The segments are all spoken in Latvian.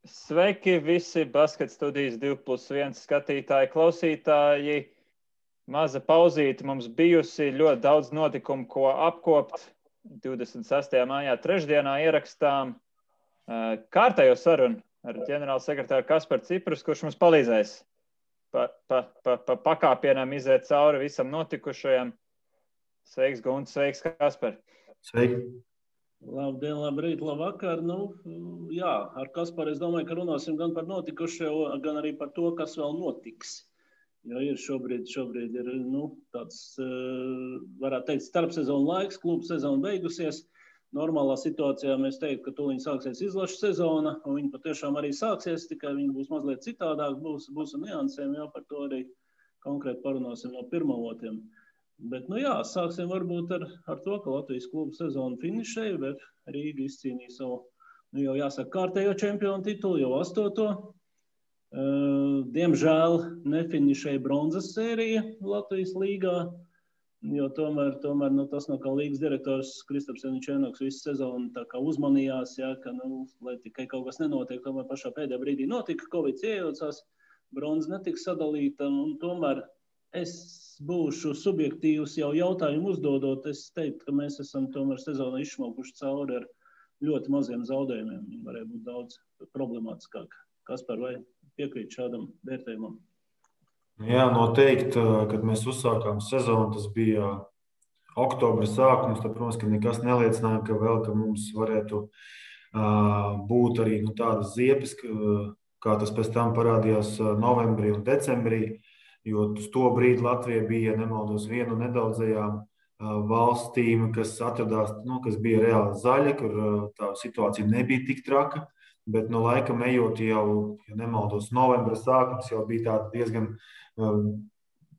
Sveiki visi Basket studijas 2+1 skatītāji, klausītāji. Maza pauzīte mums bijusi, ļoti daudz notikumu, ko apkopt. 26. maijā trešdienā ierakstām kārtējo sarunu ar ģenerālu sekretāru Kasparu Ciprus, kurš mums palīdzēs pa pakāpienam iziet cauri visam notikušajam. Sveiks, Gunts, sveiks, Kaspar. Sveiki. Labdien, labrīt, labvakar. Jā, ar Kasparu es domāju, ka runāsim gan par notikušo, gan arī par to, kas vēl notiks. Jo ir šobrīd ir tāds, varētu teikt, starpsezonu laiks, klubu sezona beigusies. Normālā situācijā mēs teiktu, ka tūlīt sāksies izlašu sezona, un viņa patiešām arī sāksies, tikai viņa būs mazliet citādāk, būs ar niansēm, jau par to arī konkrēti parunāsim no pirmavotiem. Bet, sāksim varbūt ar to, ka Latvijas klubu sezonu finišēja, bet Rīga izcīnīja savu, jau jāsaka, kārtējo čempionu titulu, jau 8. Diemžēl nefinišēja bronzas sērija Latvijas līgā, jo tomēr tas, kā līgas direktors Kristaps Janičēnoks visu sezonu tā kā uzmanījās, ka, lai tikai kaut kas nenotiek, tomēr pašā pēdējā brīdī notika, Covid iejaucās, bronza netika sadalīta, un tomēr es būšu subjektīvs jau jautājumu uzdodot. Es teiktu, ka mēs esam tomēr sezonu izšmaukuši cauri ar ļoti maziem zaudējumiem. Viņi varēja būt daudz problemātiskāk. Kaspar, vai piekrīt šādam vērtējumam? Jā, noteikti, kad mēs uzsākām sezonu, tas bija oktobra sākums, tad, protams, ka nekas neliecināja, ka mums varētu būt arī tādas ziepes, kā tas pēc tam parādījās novembrī un decembrī. Jo uz to brīdi Latvija bija, nemaldos, viena no nedaudzajām valstīm, kas atradās, kas bija reāli zaļa, kur tā situācija nebija tik traka, bet no laikam ejot jau, ja nemaldos, novembra sākums jau bija tādi diezgan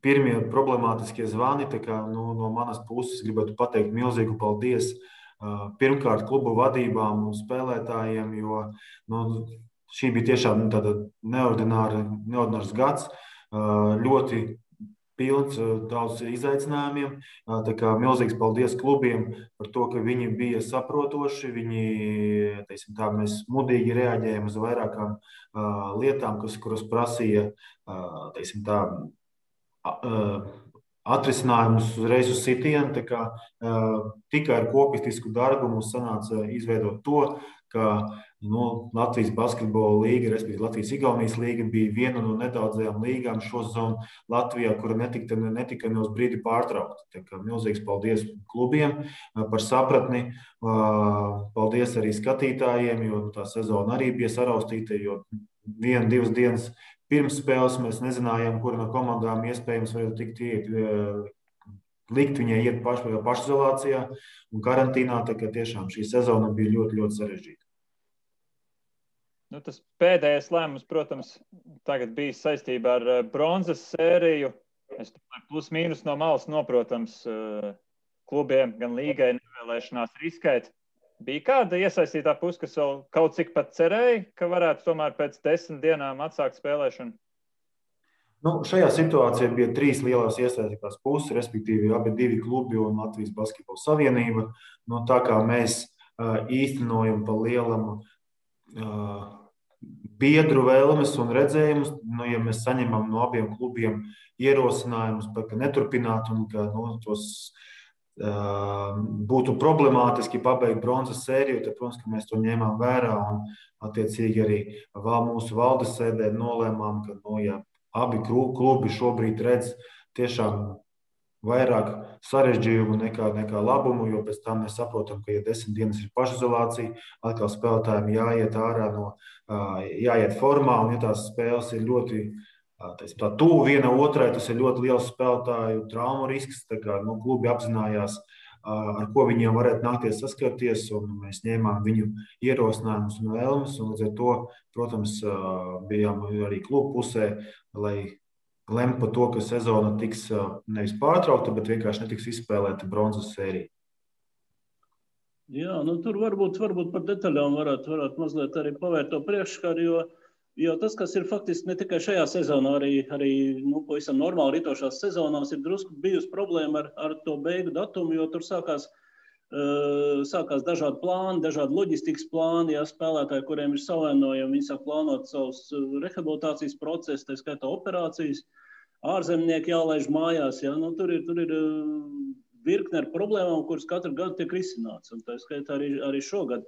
pirmie problemātiskie zvani, tā kā no manas puses gribētu pateikt milzīgu paldies pirmkārt klubu vadībām un spēlētājiem, jo šī bija tiešām tāda neordinārs gads. Ļoti pilns, daudz izaicinājumiem. Tā kā milzīgs paldies klubiem par to, ka viņi bija saprotoši. Viņi, mēs mudīgi reaģējam uz vairākām lietām, kuras prasīja, atrisinājumus uzreiz uz sitienu. Tā kā tikai ar kopistisku darbu mums sanāca izveidot to, ka Latvijas basketbola līga, respektīvi Latvijas-Igaunijas līga, bija viena no nedaudzajām līgām šo sezonu Latvijā, kura netika ne uz brīdi pārtraukta. Tā kā milzīgs paldies klubiem par sapratni. Paldies arī skatītājiem, jo tā sezona arī bija saraustīta, jo 1-2 dienas pirms spēles mēs nezinājām, kura no komandām iespējams varētu likt viņai iet pašizolācijā un karantīnā. Tā kā tiešām šī sezona bija ļoti, ļoti sarežģīta. Tas pēdējais lēmums, protams, tagad bija saistībā ar bronzas sēriju. Es domāju, plus mīnus no malas noprotams klubiem, gan līgai nevēlēšanās riskēt. Bija kāda iesaistītā puse, kas vēl kaut cik pat cerēja, ka varētu tomēr pēc 10 dienām atsākt spēlēšanu? Šajā situācijā bija 3 lielās iesaistītās puses, respektīvi abi 2 klubi un Latvijas Basketbola Savienība. Tā kā mēs īstenojam pa lielam biedru vēlmes un redzējumus, ja mēs saņemam no abiem klubiem ierosinājumus, ka neturpināt un ka tos būtu problemātiski pabeigt bronzas sēriju, tad, protams, ka mēs to ņēmām vērā un attiecīgi arī mūsu valdes sēdē nolēmām, ka ja abi klubi šobrīd redz tiešām vairāk sarežģījumu nekā labumu, jo pēc tam mēs saprotam, ka, ja 10 dienas ir pašizolācija, atkal spēlētājiem jāiet ārā jāiet formā, un ja tās spēles ir ļoti tuvu viena otrai, tas ir ļoti liels spēlētāju traumu risks, tā kā klubi apzinājās, ar ko viņiem varētu nākties saskarties, un mēs ņēmām viņu ierosinājumus un vēlmes, un līdz ar to, protams, bijām arī klubu pusē, lai lemt par to, ka sezona tiks nevis pārtraukta, bet vienkārši netiks izspēlēta bronzas sērija. Jā, tur varbūt par detaļām varētu mazliet arī pavērt to priekšskaru, jo tas, kas ir faktiski ne tikai šajā sezonā, arī pavisam normāli ritošās sezonās ir drusku bijusi problēma ar to beigu datumu, jo tur sākās sākās dažādi plāni, dažādi loģistikas plāni, ja spēlētāji, kuriem ir savainojumi, viņi sāk plānot savus rehabilitācijas procesus, tā skaitā operācijas, ārzemnieki jālaiž mājās, ja, nu, tur ir virkne ar problēmām, kuras katru gadu tiek risināts, un tā skaitā arī šogad.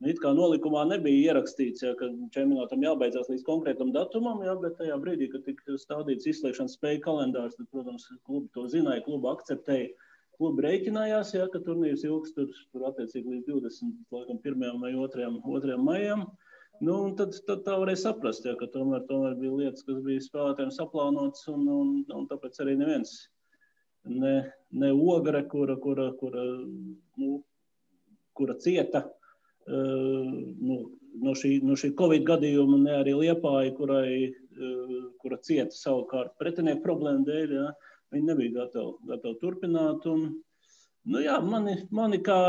It kā nolikumā nebija ierakstīts, ja, ka čempionātam jābeidzās līdz konkrētam datumam, ja, bet tajā brīdī, kad tika stādīts izslēgšanas spēju kalendārs, tad, protams, klubi to zināja, klubi akceptēja, klubi rēķinājās, ja, ka turnīrs ilgs tur attiecīgi līdz 21. vai 2. maijam. Nu, un tad tā varēja saprast, ja, ka tomēr bija lietas, kas bija spēlētājiem saplānotas, un tāpēc arī neviens ne Ogre, kura cieta no šī Covid gadījuma, ne arī Liepāja, kura cieta savukārt pretinieku problēmu dēļ, ja, viņi nebija gatavi turpināt. Un, nu jā, mani kā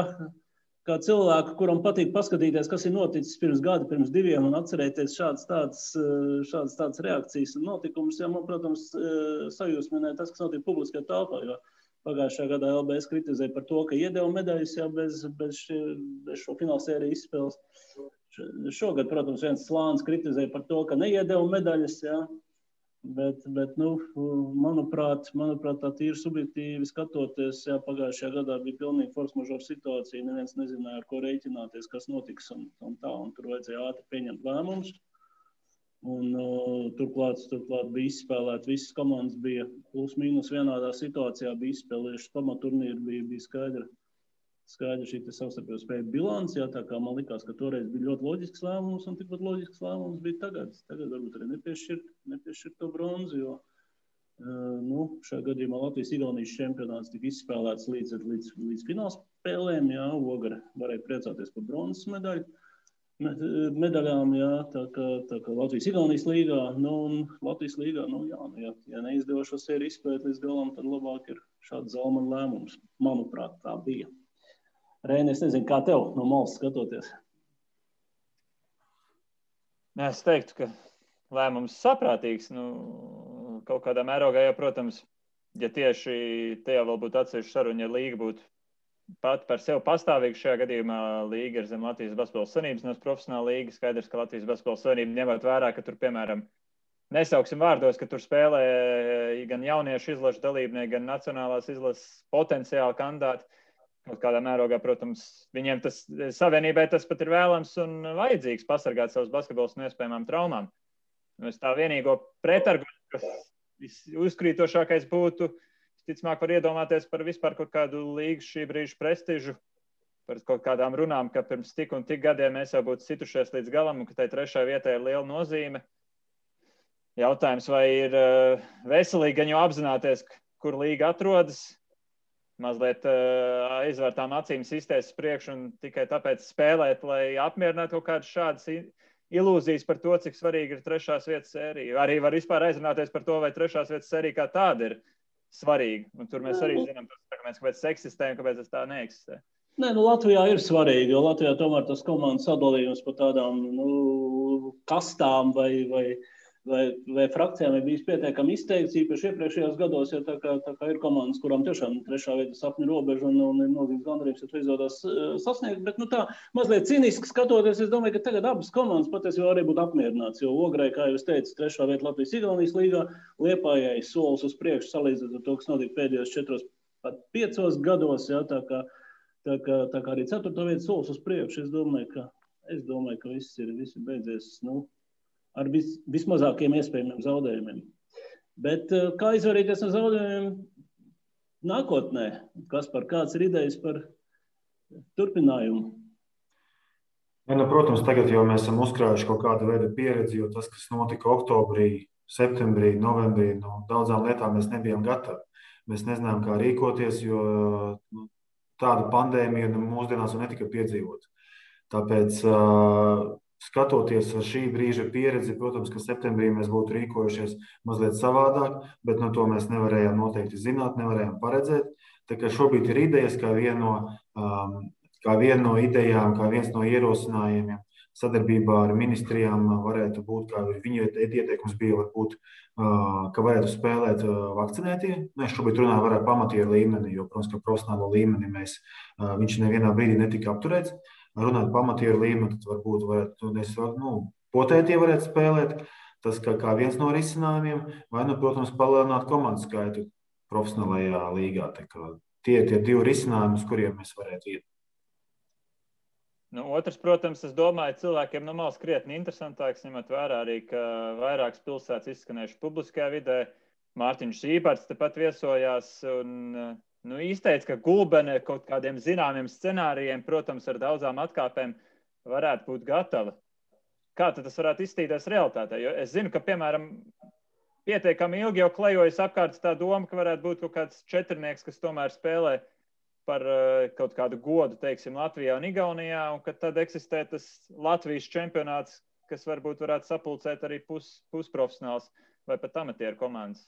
cilvēku, kuram patīk paskatīties, kas ir noticis pirms gada, pirms 2, un atcerēties šādas tādas reakcijas un notikumus, ja man, protams, sajūsminē tas, kas notiek publiskajā telpā, jo pagājušajā gadā LBS kritizēja par to, ka iedeva medaļas, ja, bez šo finālsēriju izspēles. Šogad, protams, viens slānis kritizēja par to, ka neiedeva medaļas, ja, bet nu, manuprāt, tā tīri subjektīvi skatoties, ja, pagājušajā gadā bija pilnīgi force majeure situācija, neviens nezināja, ar ko rēķināties, kas notiks un tā, un tur vajadzēja ātri pieņemt lēmumus. Un turklāt bija izspēlēti, visas komandas bija plus mīnus vienādā situācijā, bija izspēlējušas pamaturnīru, bija skaidra šī savstarpējo spēju bilants, jā, tā kā man likās, ka toreiz bija ļoti loģisks lēmums, un tikpat loģisks lēmums bija tagad. Tagad varbūt arī nepiešķirt to bronzu, jo šajā gadījumā Latvijas-Igaunijas čempionāts tika izspēlēts līdz finālspēlēm, jā, Ogre varēja priecāties par bronzas medaļām, jā, tā kā Latvijas-Igaunijas līgā, un Latvijas līgā, ja neizdevo šo sēriju izspēt līdz galam, tad labāk ir šāds Zalmana lēmums. Manuprāt, tā bija. Reini, es nezinu, kā tev no malas skatoties? Es teiktu, ka lēmums saprātīgs, kaut kādā mērogā, ja, protams, ja tieši tajā vēl būtu atsevišķa saruna, ja līga būtu pat par sevi pastāvīgi, šajā gadījumā līga ir zem Latvijas Basketbola Savienības, no profesionāla līga. Skaidrs, ka Latvijas Basketbola Savienība ņemot vērā, ka tur, piemēram, nesauksim vārdos, ka tur spēlē gan jauniešu izlašu dalībnieki, gan nacionālās izlases potenciāli kandidāti. Kaut kādā mērogā, protams, viņiem savienībai tas pat ir vēlams un vajadzīgs pasargāt savus basketbolus no iespējamām traumām. Es tā vienīgo pretargumentu, kas uzkrītošākais būtu, ticamāk var iedomāties par vispār kaut kādu līgu šī brīža prestižu, par kaut kādām runām, ka pirms tik un tik gadiem mēs jau būtu situšies līdz galam un ka tai 3. vietai ir liela nozīme. Jautājums, vai ir veselīgi gan jau apzināties, kur līga atrodas, mazliet aizvērtām acīm sistēs priekš un tikai tāpēc spēlēt, lai apmierinātu kaut kādas šādas ilūzijas par to, cik svarīgi ir 3. vietas sērija. Arī var vispār aizrunāties par to, vai 3. vietas sērija kā tāda ir svarīgi. Un tur mēs arī zinām, kāpēc tas eksistē un kāpēc tas tā neeksistē. Nē, Latvijā ir svarīgi, jo Latvijā tomēr tas komandas sadalījums par tādām kastām vai frakcijām ir bijis pietiekami izteikts, īpaši iepriekšējos gados, ja tā kā ir komandas, kurām tiešām 3. vieta sapņu robeža un ir milzīgs gandarījums, ja to izdodas sasniegt, bet tā mazliet cīniski skatoties, es domāju, ka tagad abas komandas patiesībā arī būtu apmierināts, jo Ogrei, kā jau es teicu, 3. vieta Latvijas-Igaunijas līgā, Liepājai solis uz priekšu salīdzinot ar to, kas notika pēdējos 4, pat 5 gados, ja, tā kā arī 4. vieta solis uz priekšu, es domāju, ka viss ir beidzies, ar vismazākiem iespējamiem zaudējumiem. Bet kā izvairīties no zaudējumiem nākotnē? Kāds ir idejas par turpinājumu? Protams, tagad jau mēs esam uzkrājuši kaut kādu veidu pieredzi, jo tas, kas notika oktobrī, septembrī, novembrī, daudzām lietām mēs nebijām gatavi. Mēs nezinām, kā rīkoties, jo tādu pandēmiju mūsdienās netika piedzīvot. Tāpēc skatoties ar šī brīža pieredzi, protams, ka septembrī mēs būtu rīkojušies mazliet savādāk, bet to mēs nevarējām noteikti zināt, nevarējām paredzēt. Tā kā šobrīd ir idejas, kā viena no idejām, kā viens no ierosinājumiem sadarbībā ar ministrijām varētu būt, kā viņu ieteikums bija, varbūt, ka varētu spēlēt vakcinētie. Mēs šobrīd runājam par pamatieru līmeni, jo, protams, ka profesionālo līmeni viņš nevienā brīdī netika apturēts. Runāt pamatieru līmeni, tad varbūt varētu, potētie varētu spēlēt. Tas kā viens no risinājumiem, vai, protams, palielināt komandu skaitu profesionālajā līgā. Tie ir tie divi risinājumi, uz kuriem mēs varētu iet. Otrs, protams, es domāju, cilvēkiem no malas krietni interesantāks, ņemot vērā arī, ka vairākas pilsētas izskanējuši publiskajā vidē. Mārtiņš Zīparts tepat viesojās un izteica, ka Gulbene kaut kādiem zināmiem scenārijiem, protams, ar daudzām atkāpēm varētu būt gatava. Kā tad tas varētu izstīties realitātē? Jo es zinu, ka, piemēram, pietiekami ilgi jau klejojas apkārt tā doma, ka varētu būt kaut kāds četrnieks, kas tomēr spēlē par kaut kādu godu, teiksim, Latvijā un Igaunijā, un ka tad eksistē tas Latvijas čempionāts, kas varbūt varētu sapulcēt arī pusprofesionāls vai pat amatieru komandas.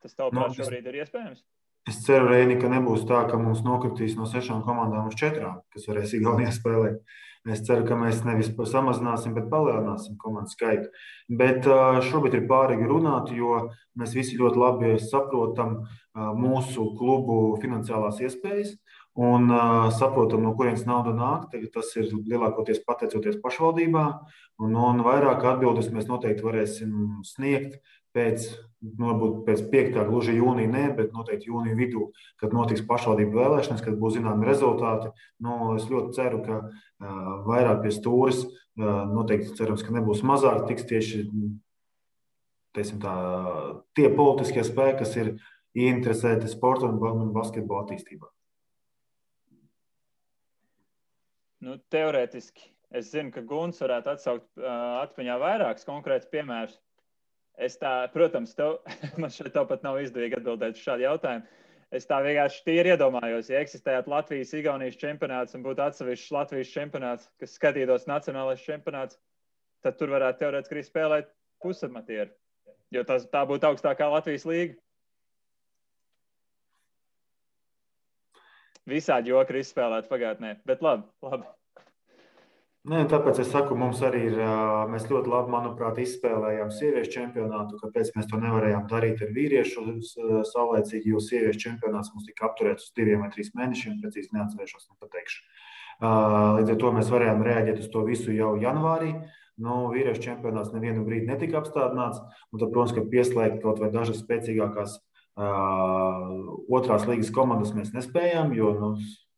Tas tavuprāt šobrīd ir iespējams? Es ceru, Reini, ka nebūs tā, ka mums nokritīs no 6 komandām uz 4, kas varēs Igaunijā spēlēt. Es ceru, ka mēs nevis samazināsim, bet palielināsim komandu skaitu. Bet šobrīd ir pārīgi runāt, jo mēs visi ļoti labi saprotam mūsu klubu finansiālās iespējas un saprotam, no kurienes nauda nāk. Tas ir lielākoties pateicoties pašvaldībām, un vairāk atbildes mēs noteikti varēsim sniegt varbūt pēc 5. gluži jūnija, ne, bet noteikti jūnija vidū, kad notiks pašvaldību vēlēšanas, kad būs zināmi rezultāti. Es ļoti ceru, ka vairāk pie stūres, noteikti cerams, ka nebūs mazāk, tiks tieši tie politiskie spēki, kas ir ieinteresēti sporta un basketbola attīstībā. Teorētiski. Es zinu, ka Guns varētu atsaukt atmiņā vairākus konkrētus piemērus. Protams, man šeit pat nav izdevīgi atbildēt uz šādu jautājumu. Es tā vienkārši tīri iedomājos, ja eksistētu Latvijas-Igaunijas čempionāts un būtu atsevišķs Latvijas čempionāts, kas skatītos nacionālais čempionāts, tad tur varētu teorētiski arī spēlēt pusamatieru, jo tā būtu augstākā Latvijas līga. Visādi joki ir izspēlēti pagātnē, bet labi. Nē, tāpēc es saku, mums arī ir, mēs ļoti labi, manuprāt, izspēlējām sieviešu čempionātu, kāpēc mēs to nevarējām darīt ar vīriešu saulēcīgi, jo sieviešu čempionāts mums tika apturēts uz 2 vai 3 mēnešiem, precīzi neatcerēšos, nepateikšu. Līdz ar to mēs varējām reaģēt uz to visu jau janvārī. Vīriešu čempionāts nevienu brīdi netika apstādināts, un tad, protams, ka pieslēgt kaut vai dažas spēcīgākās otrās līgas komandas mēs nespējām, jo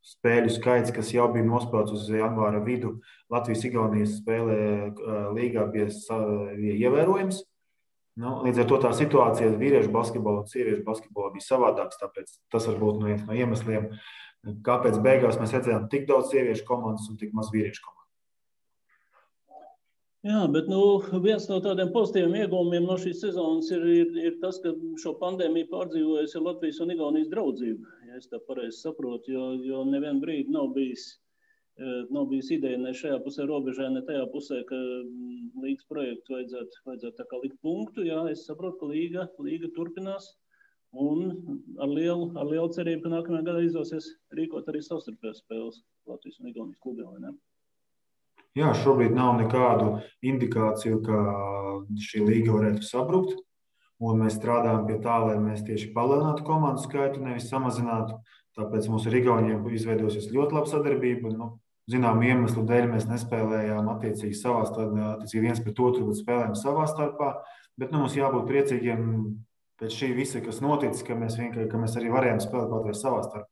spēļu skaits, kas jau bija nospēlēts uz janvāra vidu, Latvijas-Igaunijas spēlē līgā bija ievērojams. Līdz ar to tā situācija vīriešu basketbolā un sieviešu basketbolā bija savādāks, tāpēc tas var būt viens no iemesliem, kāpēc beigās mēs redzējām tik daudz sieviešu komandas un tik maz vīriešu komandas. Jā, bet viens no tādiem pozitīviem iegūmiem no šīs sezonas ir tas, ka šo pandēmiju pārdzīvojusi Latvijas un Igaunijas draudzība, ja es tā pareizi saprotu, jo nevienu brīdi nav bijis ideja ne šajā pusē robežā, ne tajā pusē, ka līgas projektu vajadzētu tā kā likt punktu. Jā, es saprotu, ka līga turpinās un ar lielu cerību, ka nākamajā gadā izdosies rīkot arī savstarpējās spēles Latvijas un Igaunijas klubiem, vai ne? Jā, šobrīd nav nekādu indikāciju, ka šī līga varētu sabrukt. Un mēs strādājam pie tā, lai mēs tieši palielinātu komandu skaitu, nevis samazinātu. Tāpēc mums ar Igauniem izveidosies ļoti laba sadarbība. Zinām iemeslu dēļ mēs nespēlējām attiecīgi viens pret otru, bet spēlējām savā starpā. Bet mums jābūt priecīgiem pēc šī visa, kas noticis, ka mēs arī varējām spēlēt kaut vai savā starpā.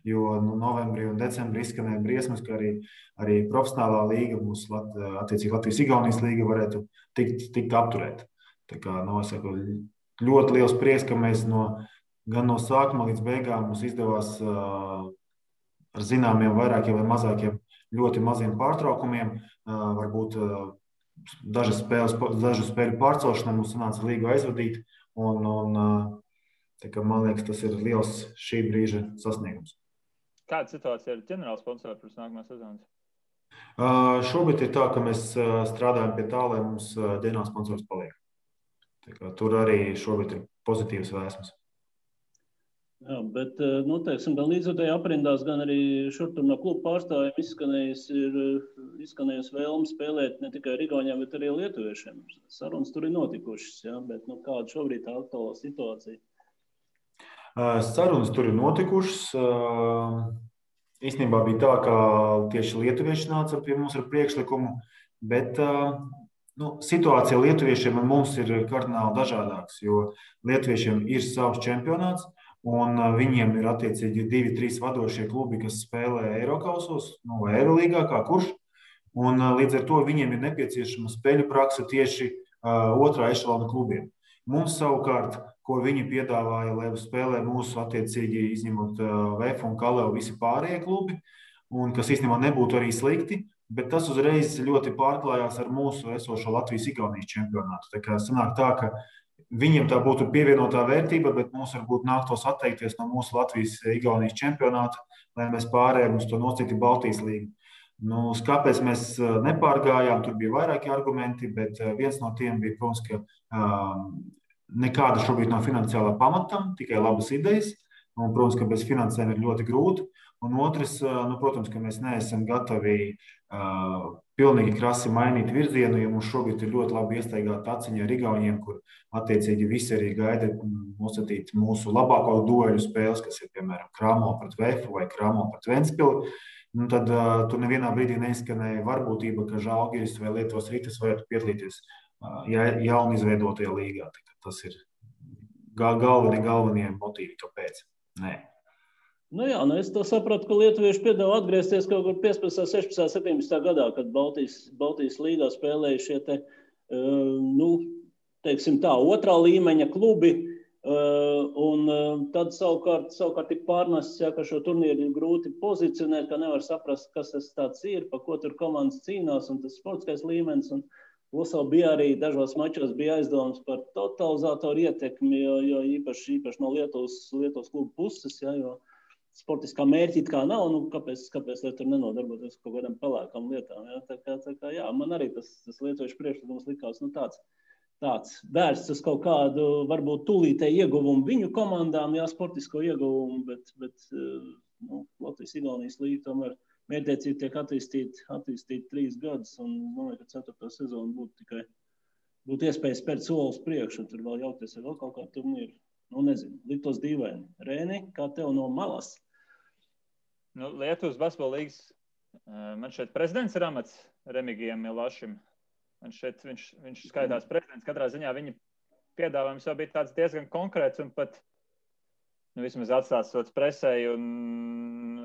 Jo novembrī un decembrī izskanēja briesmas, ka arī profesionālā līga, mums attiecīgi Latvijas-Igaunijas līga varētu tikt apturēta. Tā kā, es saku, ļoti liels prieks, ka mēs gan no sākuma līdz beigām mums izdevās ar zināmiem vairākiem vai mazākiem ļoti maziem pārtraukumiem, varbūt dažu spēļu pārcelšanai mums sanāca līgu aizvadīt, un tā kā, man liekas, tas ir liels šī brīža sasniegums. Kāda situācija ar ģenerālu sponsoru pirms nākamās sezonas? Šobrīd ir tā, ka mēs strādājam pie tā, lai mums ģenerāls sponsors paliek. Tā kā, tur arī šobrīd ir pozitīvas vēsmas. Jā, bet, teiksim, gan līdzotēji aprindās, gan arī šur tur no kluba pārstāvjiem izskanējis ir izskanējusi vēlme spēlēt ne tikai Igauniem, bet arī lietuviešiem. Sarunas tur ir notikušas, ja? Bet kāda šobrīd tā aktuālā situācija? Sarunas tur ir notikušas. Īstenībā bija tā, ka tieši lietuvieši nāca pie mums ar priekšlikumu, bet situācija lietuviešiem un mums ir kardināli dažādāks, jo lietuviešiem ir savs čempionāts, un viņiem ir attiecīgi 2-3 vadošie klubi, kas spēlē Eirokausos, vai Eirolīgā, kā kurš. Un līdz ar to viņiem ir nepieciešama spēļu prakse tieši otrā ešalona klubiem. Mums savukārt, ko viņi piedāvāja, lai spēlē mūsu attiecīgi izņemot VF un Kaleu visi pārējie klubi, un kas īstenībā nebūtu arī slikti, bet tas uzreiz ļoti pārklājās ar mūsu esošo Latvijas-Igaunijas čempionātu. Tā kā sanāk tā, ka viņiem tā būtu pievienotā vērtība, bet mums varbūt nāktos atteikties no mūsu Latvijas-Igaunijas čempionāta, lai mēs pārējām uz to nosacīti Baltijas līgu. Kāpēc mēs nepārgājām, tur bija vairāki argumenti, bet viens no tiem bija, protams, ka nekāda šobrīd nav finansiālā pamatam, tikai labas idejas. Un, protams, ka bez finansēm ir ļoti grūti. Un otrs, protams, ka mēs neesam gatavi pilnīgi krasi mainīt virzienu, jo mums šobrīd ir ļoti labi iestaigāta aciņa ar Igauniem, kur attiecīgi visi arī gaida nosacīt mūsu labāko dueļu spēles, kas ir, piemēram, Kramo pret VF vai Kramo pret Ventspili. Tad tur nevienā brīdī neizskanēja varbūtība, ka Žalgiris vai Lietuvas Ritas varētu piedalīties jauni izveidotajā līgā. Tas ir galvenie motīvi, kāpēc. Nē. Es to sapratu, ka lietuvieši piedāvā atgriezties kaut kur 15, 16, 17 gadā, kad Baltijas līgā spēlēja šie teiksim tā, otrā līmeņa klubi, un tad savukārt ir pārnests, ka šo turnīru ir grūti pozicionēt, ka nevar saprast, kas tas tāds ir, pa ko tur komandas cīnās, un tas sportiskais līmenis, un plus vēl bija arī dažos mačos bija aizdomas par totalizatoru ietekmi, jo īpaši no Lietuvas klubu puses, jo sportiskā mērķi it kā nav, kāpēc lai tur nenodarboties kaut kādām pelēkām lietām. Tā kā, man arī tas lietuviešu priekšlikums likās tāds vērsts uz kaut kādu, varbūt tūlītēju ieguvumu viņu komandām, sportisko ieguvumu, bet Latvijas-Igaunijas līga tomēr mērķtiecīgi tiek attīstīt 3 gadus, un domāju, ka 4. sezonu būtu iespēja spērt solis priekšu, un tur vēl jaukties vēl kaut kā turnīru. Nezinu, liktos dīvaini. Rēni, kā tev no malas? Lietuvas basketbola līgas, man šeit prezidents ir amats Remigijam Milašim. Man šeit viņš skaitās prezidents. Katrā ziņā viņa piedāvājums jau bija tāds diezgan konkrēts un pat vismaz atstāstots presēji, un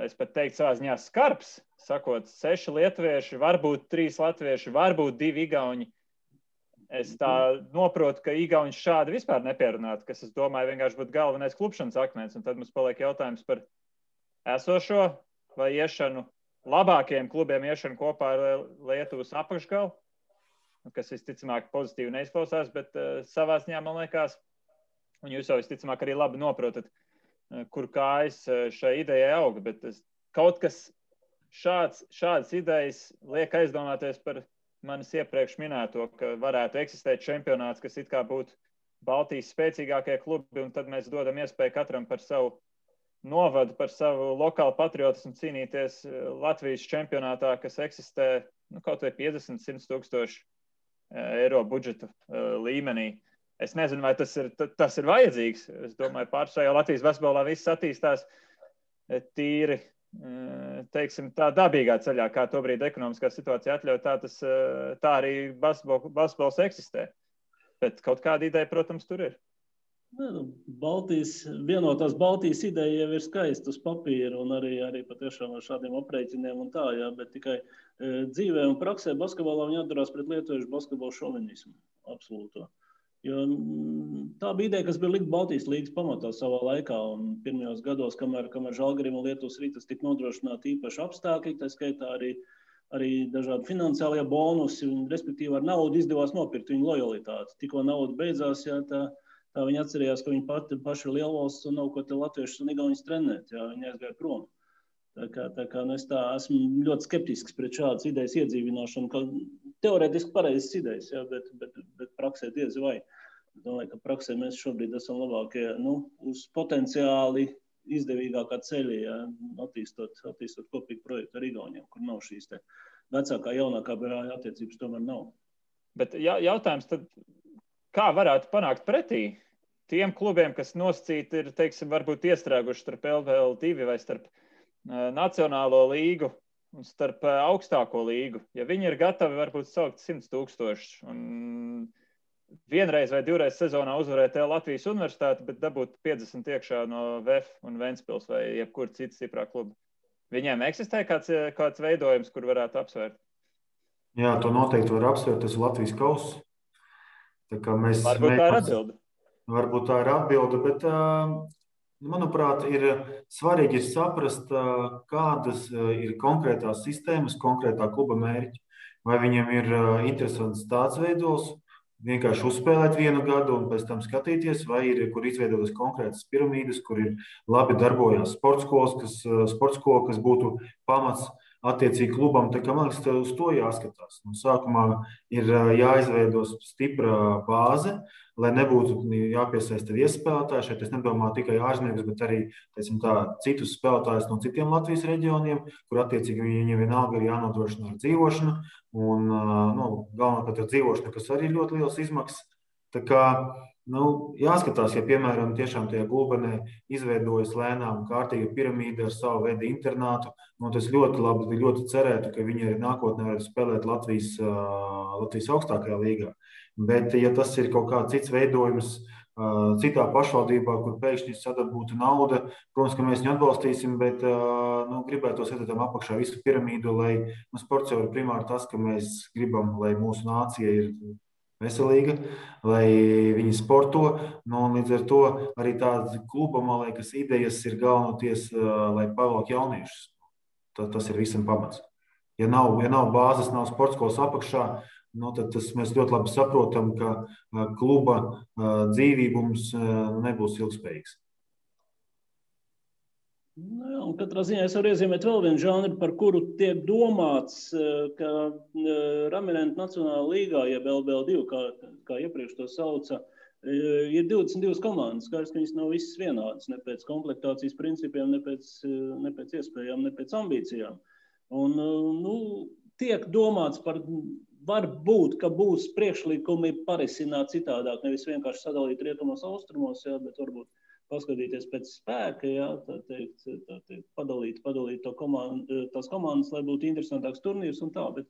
es pat teiktu savā ziņā skarbs, sakot 6 lietuvieši, varbūt 3 latvieši, varbūt 2 igauņi. Es tā noprotu, ka igauņi šādi vispār nepierunātu, kas, es domāju, vienkārši būtu galvenais klupšanas akmens, un tad mums paliek jautājums par esošo vai iešanu, labākajiem klubiem iešanu kopā ar Lietuvas apakšgalu, kas visticamāk pozitīvi neizklausās, bet savā ziņā, man liekas, un jūs jau visticamāk arī labi noprotat, kur kājas šai idejai auga, bet kaut kas šādas idejas liek aizdomāties par manis iepriekš minēto, ka varētu eksistēt čempionāts, kas it kā būtu Baltijas spēcīgākie klubi, un tad mēs dodam iespēju katram par savu novadu, par savu lokālu patriotismu cīnīties Latvijas čempionātā, kas eksistē kaut vai 50-100 tūkstoši eiro budžeta līmenī. Es nezinu, vai tas ir vajadzīgs. Es domāju, pārsvarā Latvijas basketbolā viss attīstās tīri, teiksim, tā dabīgā ceļā, kā tobrīd ekonomiskā situācija atļauj, tā arī basketbols eksistē. Bet kaut kāda ideja, protams, tur ir. Vienotās Baltijas ideja jau ir skaista uz papīra un arī patiešām ar šādiem aprēķiniem un tā, bet tikai dzīvē un praksē basketbolā viņi atdarās pret lietuviešu basketbolu šovinismu. Absolūto. Jo tā bija ideja, kas bija likt Baltijas līgas pamatā savā laikā, un pirmajos gados, kamēr Žalgirim un Lietuvas Ritas tika nodrošināti īpaši apstākļi, tā skaitā arī dažādi finansiālie bonusi, un respektīvi ar naudu izdevās nopirkt viņu lojalitāti. Tikko nauda beidzās, tā viņi atcerējās, ka viņi paši ir lielvalsts un nav ko te latviešus un igauņus trenēt, viņi aizgāja prom. Tā kā es esmu ļoti skeptisks pret šādas idejas iedzīvināšanu, ka teorētiski pareizas idejas, bet praksē diezi vai. Es domāju, ka praksē mēs šobrīd esam labākie, uz potenciāli izdevīgākā ceļa, attīstot kopīgu projektu ar igauņiem, kur nav šīs te vecākā, jaunākā brāļa attiecības tomēr nav. Bet jautājums tad, kā varētu panākt pretī tiem klubiem, kas nosacīti ir, teiksim, varbūt iestrēguši starp LVL2 vai starp Nacionālo līgu un starp augstāko līgu. Ja viņi ir gatavi varbūt saukt 100 000 un vienreiz vai divreiz sezonā uzvarēt Latvijas universitāti, bet dabūt 50 iekšā no VF un Ventspils vai jebkur cita stiprā kluba. Viņiem eksistē kāds veidojums, kur varētu apsvērt? Jā, to noteikti var apsvērt. Tas ir Latvijas kauss. Varbūt tā ir atbilde. Varbūt tā ir atbilde, bet, manuprāt, ir svarīgi saprast, kādas ir konkrētās sistēmas, konkrētā kluba mērķi. Vai viņam ir interesants tāds veidos, vienkārši uzspēlēt vienu gadu un pēc tam skatīties, vai ir, kur izveidotas konkrētas piramīdas, kur ir labi darbojās sporta skola, kas būtu pamats attiecīgi klubam. Tā kā man liekas, uz to jāskatās. Un sākumā ir jāizveido stipra bāze, lai nebūtu jāpiesaista viesspēlētāji. Šeit es nedomāju tikai ārzemniekus, bet arī citus spēlētājus no citiem Latvijas reģioniem, kur attiecīgi viņiem vienalga ir jānodrošina ar dzīvošanu. Un galvenokārt ar dzīvošanu, kas arī ir ļoti liels izmaksas. Tā kā jāskatās, ja, piemēram, tiešām tajā Gulbenē izveidojas lēnām kārtīga piramīda ar savu veidu internātu, tas ļoti labi, ļoti cerētu, ka viņi arī nākotnē var spēlēt Latvijas augstākajā līgā. Bet, ja tas ir kaut kāds cits veidojums citā pašvaldībā, kur pēkšņi sadabūta nauda, protams, ka mēs viņu atbalstīsim, bet gribētos redzēt tam apakšā visu piramīdu, lai sports jau ir primāri tas, ka mēs gribam, lai mūsu nācija ir veselīga, lai viņi sporto. Līdz ar to arī tāda kluba, man liekas, idejas ir galvenoties, lai pavelk jauniešus. Tas ir visam pamats. Ja nav bāzes, nav sporta skolas apakšā, tad mēs ļoti labi saprotam, ka kluba dzīvības nebūs ilgspējīgs. Un katrā ziņā es varu iezīmēt vēl vienu žanru, par kuru tiek domāts, ka Ramirentu Nacionālā līgā, jeb LBL2, kā iepriekš to sauca, ir 22 komandas. Skaidrs, ka viņas nav visas vienādas, ne pēc komplektācijas principiem, ne pēc iespējām, ne pēc ambīcijām. Un tiek domāts par, varbūt, ka būs priekšlikumi parisināt citādāk, nevis vienkārši sadalīt rietumos, austrumos, bet varbūt paskatīties pēc spēka, tā teikt, padalīt tās komandas, lai būtu interesantāks turnīrs un tā. Bet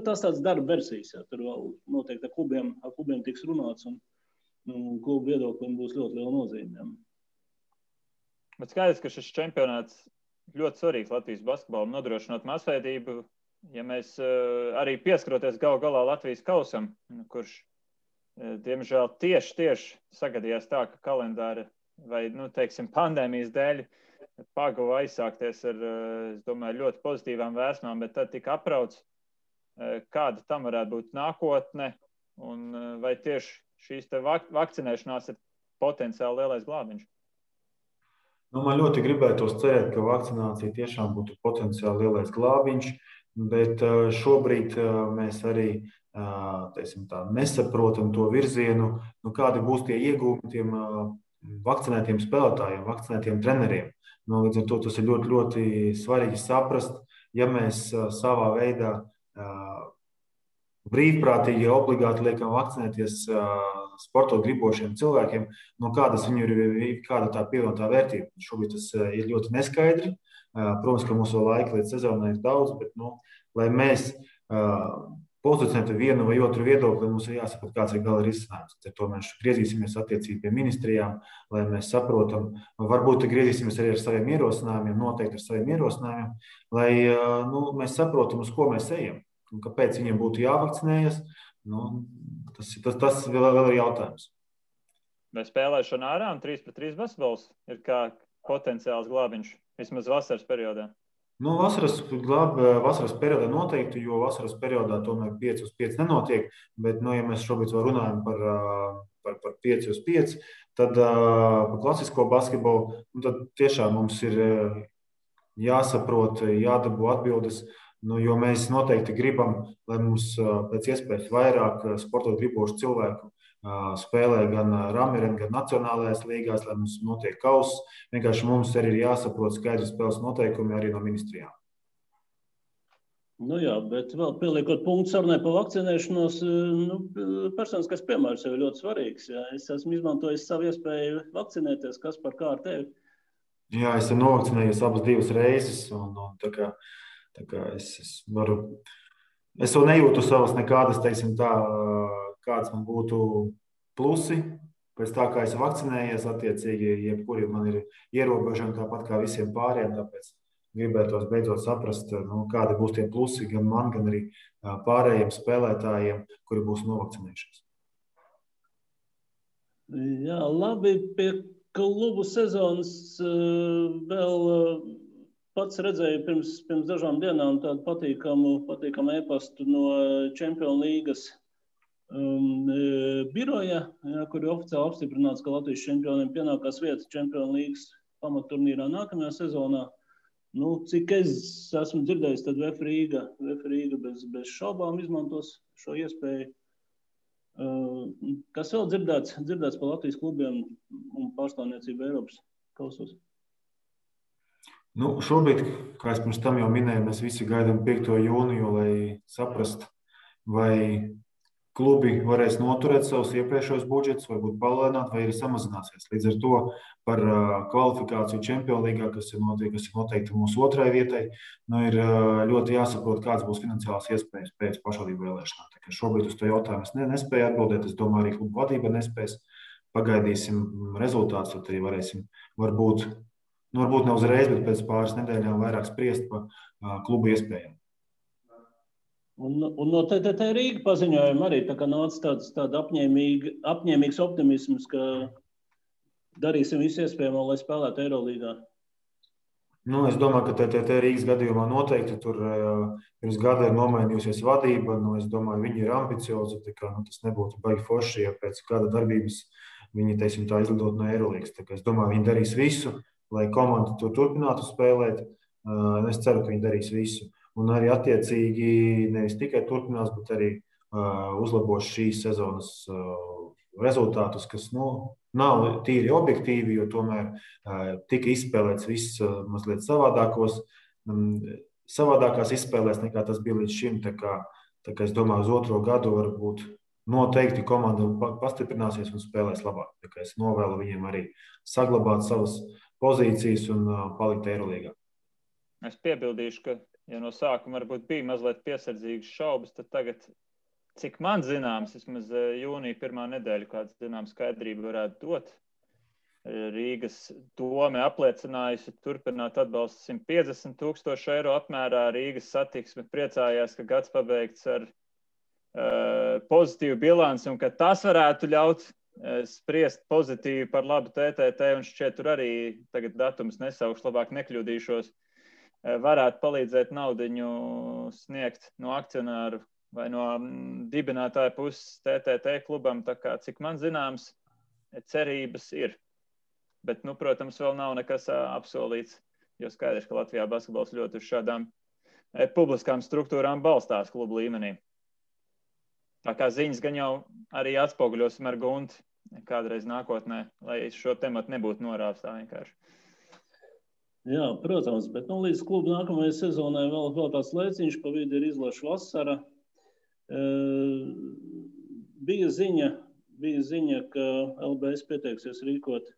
tas tāds darba versijas, tur vēl noteikti ar klubiem tiks runāts un klubu viedoklim būs ļoti liela nozīme. Bet skaidrs, ka šis čempionāts ļoti svarīgs Latvijas basketbolam, nodrošinot masveidību, ja mēs arī pieskaroties galu galā Latvijas kausam, kurš, diemžēl, tieši sagadījās tā, ka kalendāra vai, teiksim, pandēmijas dēļ paguva aizsākties ar, es domāju, ļoti pozitīvām vēsmām, bet tad tika aprauts, kāda tam varētu būt nākotne, un vai tieši šīs te vakcinēšanās ir potenciāli lielais glābiņš? Man ļoti gribētos cerēt, ka vakcinācija tiešām būtu potenciāli lielais glābiņš, bet šobrīd mēs arī nesaprotam to virzienu, kādi būs tie iegūmi tiem vakcinētiem spēlētājiem, vakcinētiem treneriem. Līdz ar to tas ir ļoti, ļoti svarīgi saprast, ja mēs savā veidā brīvprātīgi obligāti liekam vakcinēties sportot gribošiem cilvēkiem, kāda tā pievienotā vērtība. Šobrīd tas ir ļoti neskaidri. Protams, ka mums vēl laika līdz sezonai ir daudz, bet, lai mēs pozicionētu vienu vai otru viedokli, mums ir jāsaprot, kāds ir gala risinājums. Ar to mēs griezīsimies attiecīgi pie ministrijām, lai mēs saprotam, varbūt griezīsimies arī ar saviem ierosinājumiem, noteikti ar saviem ierosinājumiem, lai mēs saprotam, uz ko mēs ejam un kāpēc viņiem būtu jāvakcinējas. Tas vēl ir jautājums. Vai spēlēšana ārā un 3-3 basketbols ir kā potenciāls glābiņš, vismaz vasaras periodā? Vasaras periodā noteikti, jo vasaras periodā tomēr 5-5 nenotiek, bet, ja mēs šobrīd vēl runājam par 5-5, tad par klasisko basketbolu, tad tiešām mums ir jāsaprot, jādabū atbildes, jo mēs noteikti gribam, lai mums pēc iespējas vairāk sportot gribošu cilvēku spēlē gan Ramiren, gan nacionālajās līgās, lai mums notiek kauss. Vienkārši mums arī ir jāsaprot skaidri spēles noteikumi arī no ministrijām. Nu jā, bet vēl pieliekot punktu sarunai par vakcinēšanos, personiskais piemērs jau ir ļoti svarīgs. Jā. Es esmu izmantojis savu iespēju vakcinēties, kas par kā ar tevi. Jā, es esmu novakcinējies abas 2 reizes, un tā kā es varu, es vēl nejūtu savas nekādas, teiksim tā, kādas man būtu plusi. Pēc tā, kā es vakcinējies, attiecīgi, jebkuri man ir ierobežojumi tāpat kā visiem pārējiem, tāpēc gribētos beidzot saprast, kādi būs tie plusi gan man, gan arī pārējiem spēlētājiem, kuri būs novakcinējušies. Jā, labi, pie klubu sezonas vēl pats redzēju pirms dažām dienām tādu patīkamu e-pastu no Čempionu līgas biroja, kur ir oficiāli apstiprināts, ka Latvijas čempioniem pienākās vieta Čempionu līgas pamatturnīrā nākamajā sezonā. Cik es esmu dzirdējis, tad VF Rīga bez šaubām izmantos šo iespēju. Kas vēl dzirdēts par Latvijas klubiem un pārstāvniecību Eiropas kausos? Šobrīd, kā es pirms tam jau minēju, mēs visi gaidām 5. jūniju, lai saprastu, vai klubi varēs noturēt savus iepriekšējos budžetus, varbūt palēnāt, vai arī samazināsies. Līdz ar to par kvalifikāciju Čempionu līgā, kas ir noteikti mūsu 2. vietai, ir ļoti jāsaprot, kāds būs finansiālās iespējas pēc pašvaldību vēlēšanām. Tā kā šobrīd uz to jautājumu es nespēju atbildēt. Es domāju, arī klubu vadība nespēs. Pagaidīsim rezultātus, tad arī varēsim varbūt ne uzreiz, bet pēc pāris nedēļām vairāk spriest par klubu iespējām. Un no TTT Rīga paziņojuma arī tā kā nāca tāds apņēmīgs optimisms, ka darīsim visu iespējamo, lai spēlētu Eirolīgā. Es domāju, ka TTT Rīgas gadījumā noteikti tur pirms gada ir nomainījusies vadība. Es domāju, viņi ir ambiciozi. Tas nebūtu baigi forši, ja pēc gada darbības viņi, teiksim, tā izlidot no Eirolīgas. Es domāju, viņi darīs visu, lai komanda tur turpinātu spēlēt. Es ceru, ka viņi darīs visu. Un arī attiecīgi nevis tikai turpinās, bet arī uzlabos šīs sezonas rezultātus, kas nav tīri objektīvi, jo tomēr tika izspēlēts viss mazliet savādākās izspēlēs, nekā tas bija līdz šim. Tā kā es domāju, uz 2. gadu varbūt noteikti komanda pastiprināsies un spēlēs labāk. Tā kā es novēlu viņiem arī saglabāt savas pozīcijas un palikt Eirolīgā. Es piebildīšu, ka ja no sākuma varbūt bija mazliet piesardzīgas šaubas, tad tagad, cik man zināms, vismaz jūnija 1. nedēļa, kāda zināma skaidrība varētu dot. Rīgas dome apliecinājusi turpināt atbalstu 150,000 eiro apmērā. Rīgas satiksme priecājās, ka gads pabeigts ar pozitīvu bilanci un ka tas varētu ļaut spriest pozitīvi par labu TTT, un šķiet tur arī tagad datums nesaukšu, labāk nekļūdīšos, varētu palīdzēt naudiņu sniegt no akcionāru vai no dibinātāja puses TTT klubam. Tā kā, cik man zināms, cerības ir. Bet, protams, vēl nav nekas apsolīts, jo skaidrs, ka Latvijā basketbols ļoti uz šādām publiskām struktūrām balstās klubu līmenī. Tā kā ziņas gan jau arī atspoguļosim ar Gunti kādreiz nākotnē, lai šo tematu nebūtu norāvis tā vienkārši. Jā, protams, bet līdz klubu nākamajai sezonai vēl tāds laiciņš, pa vidu ir izlaša vasara. Bija ziņa, ka LBS pieteiksies rīkot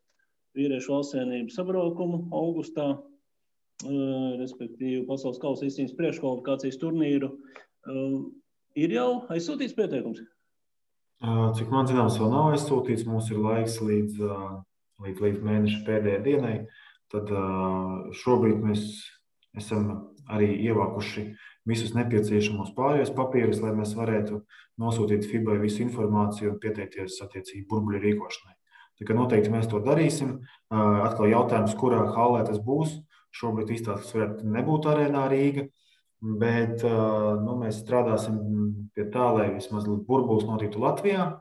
vīriešu valstsienību sabraukumu augustā, respektīvi Pasaules kausa izcīņas priekškvalifikācijas turnīru. Ir jau aizsūtīts pieteikums? Cik man zināms, vēl nav aizsūtīts. Mums ir laiks līdz mēneša pēdējai dienai. Tad šobrīd mēs esam arī ievākuši visus nepieciešamos pārējos papīrus, lai mēs varētu nosūtīt FIBA visu informāciju un pieteikties attiecīgi burbuļu rīkošanai. Tā kā noteikti mēs to darīsim. Atkal jautājums, kurā hallē tas būs. Šobrīd izstāstas varētu nebūt Arēnā Rīga, bet mēs strādāsim pie tā, lai vismaz burbulis notiktu Latvijā.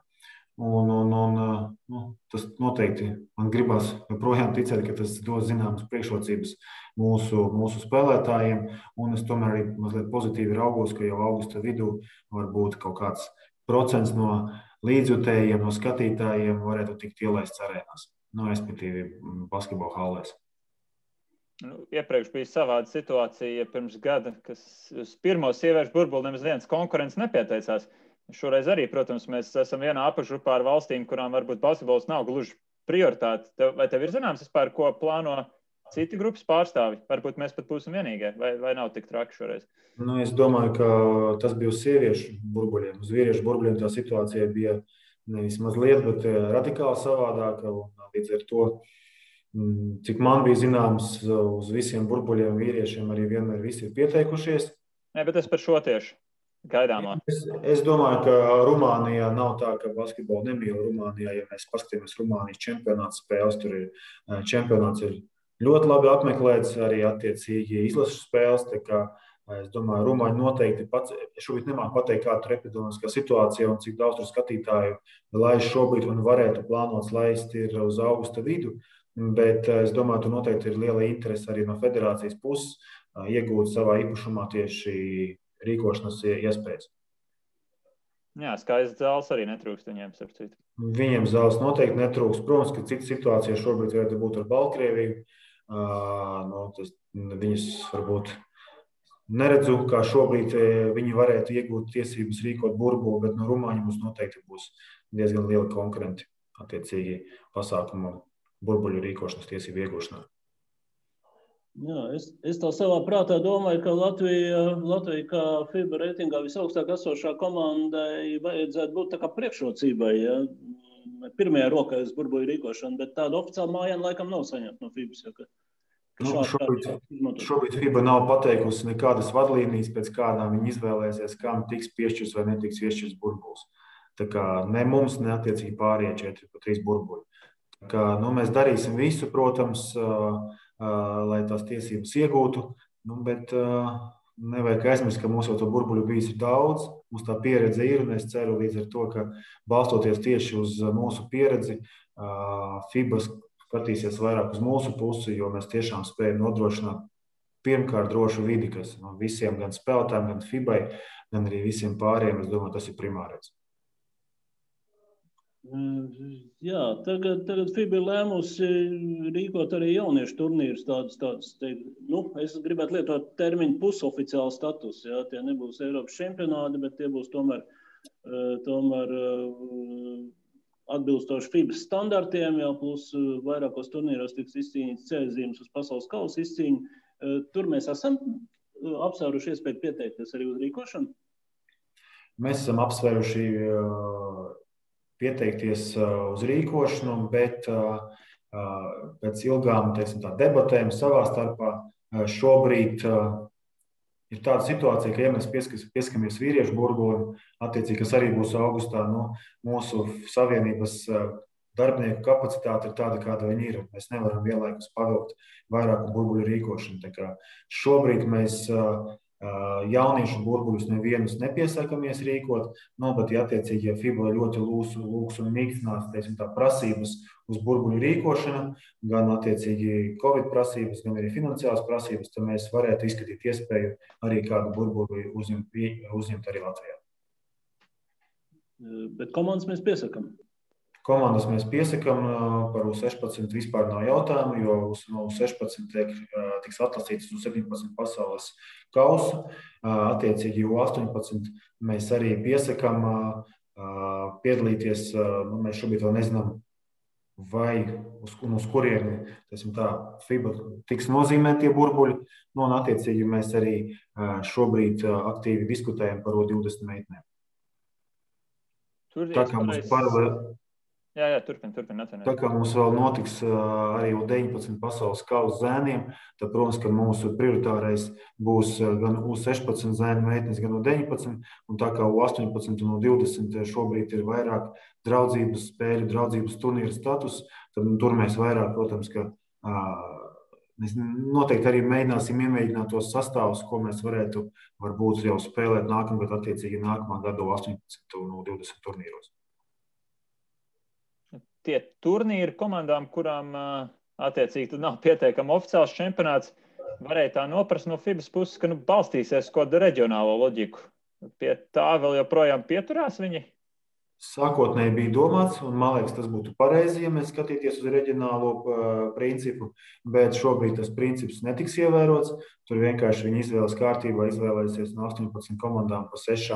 Tas noteikti man gribas joprojām ticēt, ka tas dos zināmas priekšrocības mūsu spēlētājiem. Un es tomēr arī mazliet pozitīvi raugos, ka jau augusta vidū varbūt kaut kāds procents no līdzjutējiem, no skatītājiem varētu tikt ielaists arēnās, respektīvi basketbola hallēs. Iepriekš bija savāda situācija pirms gada, kas uz pirmo sieviešu burbuli nemaz viens konkurents nepieteicās. Šoreiz arī, protams, mēs esam vienā apakšgrupā ar valstīm, kurām varbūt basketbols nav gluži prioritāte. Vai tev ir zināms vispār, ko plāno citi grupas pārstāvi? Varbūt mēs pat būsim vienīgie, vai nav tik traki šoreiz? Es domāju, ka tas bija uz sieviešu burbuļiem. Uz vīriešu burbuļiem tā situācija bija nevis mazliet, bet radikāli savādāka. Līdz ar to, cik man bija zināms, uz visiem burbuļiem vīriešiem arī vienmēr visi ir pieteikušies. Nē, bet es par šo tieši gaidāmā. Es domāju, ka Rumānijā nav tā, ka basketbolu nemīl Rumānijā. Ja mēs paskatāmies Rumānijas čempionāts spēles, tur ir čempionāts ir ļoti labi apmeklēts, arī attiecīgi izlases spēles. Es domāju, Rumāņi noteikti pats, šobrīd nemāku pateikt, kāda ir epidemiskā situācija un cik daudz tur skatītāju laiž šobrīd un varētu plānots laist ir uz augusta vidu. Bet es domāju, tur noteikti ir liela interese arī no federācijas puses iegūt savā īpašumā tieši rīkošanas iespējas. Jā, skaists zāles arī netrūkst viņiem, starp citu. Viņiem zāles noteikti netrūkst. Protams, ka cita situācija šobrīd varētu būt ar Baltkrieviju. Viņas varbūt neredzu, kā šobrīd viņi varētu iegūt tiesības rīkot burbuli, bet no Rumāņu mums noteikti būs diezgan lieli konkurenti attiecīgi pasākumu burbuļu rīkošanas tiesību iegūšanā. Jā, es tā savā prātā domāju, ka Latvija kā FIBA reitingā visaugstāk esošā komandai vajadzētu būt tā kā priekšrocībai, ja? Pirmajā rokā uz burbuļu rīkošanu, bet tādu oficiālu mājienu laikam nav saņemta no FIBAs. Šobrīd FIBA nav pateikusi nekādas vadlīnijas, pēc kādām viņi izvēlēsies, kam tiks piešķirts vai netiks piešķirts burbulis. Tā kā ne mums, ne attiecīgi pārējie 4 pa 3 burbuļi. Tā kā, mēs darīsim visu, protams, lai tās tiesības iegūtu, bet nevajag aizmirst, ka mums jau to burbuļu bijis daudz, mums tā pieredze ir, un es ceru līdz ar to, ka balstoties tieši uz mūsu pieredzi, FIBA skatīsies vairāk uz mūsu pusi, jo mēs tiešām spējam nodrošināt pirmkārt drošu vidi, kas visiem gan spēlētājiem, gan FIBai, gan arī visiem pārējiem, es domāju, tas ir primārais. Jā, tagad FIBA ir lēmusi rīkot arī jauniešu turnīrus tādus. Es gribētu lietot termiņu pusoficiālu status. Jā, tie nebūs Eiropas čempionāti, bet tie būs tomēr atbilstoši FIBA standartiem, jā, plus vairākos turnīros tiks izcīnīts ceļzīmes uz pasaules kausa izcīņu. Tur mēs esam apsvēruši iespēju pieteikties arī uz rīkošanu? Mēs esam apsvēruši pieteikties uz rīkošanu, bet pēc ilgām debatēm savā starpā šobrīd ir tāda situācija, ka, ja mēs pieskamies vīriešu burbulim, attiecīgi, kas arī būs augustā, mūsu savienības darbinieku kapacitāte ir tāda, kāda viņi ir. Mēs nevaram vienlaikus pavilkt vairāku burbuļu rīkošanu. Tā kā šobrīd mēs jauniešu burbuļus nevienus nepiesakamies rīkot, bet, ja attiecīgi, ja FIBA ļoti lūgs un mīkstinās, prasības uz burbuļu rīkošanu, gan attiecīgi Covid prasības, gan arī finansiālas prasības, tad mēs varētu izskatīt iespēju arī kādu burbuļu uzņemt arī Latvijā. Bet komandas mēs piesakam? Komandas mēs piesakam, par U16 vispār nav jautājumu, jo no U16 tiks atlasīts uz 17 pasaules kausu. Attiecīgi U18 mēs arī piesakam piedalīties. Mēs šobrīd vēl nezinām, vai uz kurieni FIBA tiks nozīmēti tie burbuļi. Un attiecīgi mēs arī šobrīd aktīvi diskutējam par U20 meitenēm. Tā kā mums paralēli. Jā, turpin. Tā kā mums vēl notiks arī U19 pasaules kausa zēniem, tad, protams, ka mūsu prioritārais būs gan U16 zēnu meitenes, gan U19, un tā kā U18 un U20 šobrīd ir vairāk draudzības spēļu, draudzības turnīra status, tad tur mēs vairāk, protams, ka mēs noteikti arī iemēģināt tos sastāvus, ko mēs varētu varbūt jau spēlēt nākamgad, attiecīgi nākamā gada U18 un U20 turnīros. Tie turnīri komandām, kurām attiecīgi nav pieteikama oficiāls čempionāts, varēja tā noprast no FIBAs puses, ka balstīsies kādu reģionālo loģiku. Pie tā vēl joprojām pieturās viņi? Sākotnēji bija domāts, un man liekas, tas būtu pareizi, ja mēs skatīties uz reģionālo principu, bet šobrīd tas princips netiks ievērots. Tur vienkārši viņi izvēles kārtībā izvēlēsies no 18 komandām pa 6,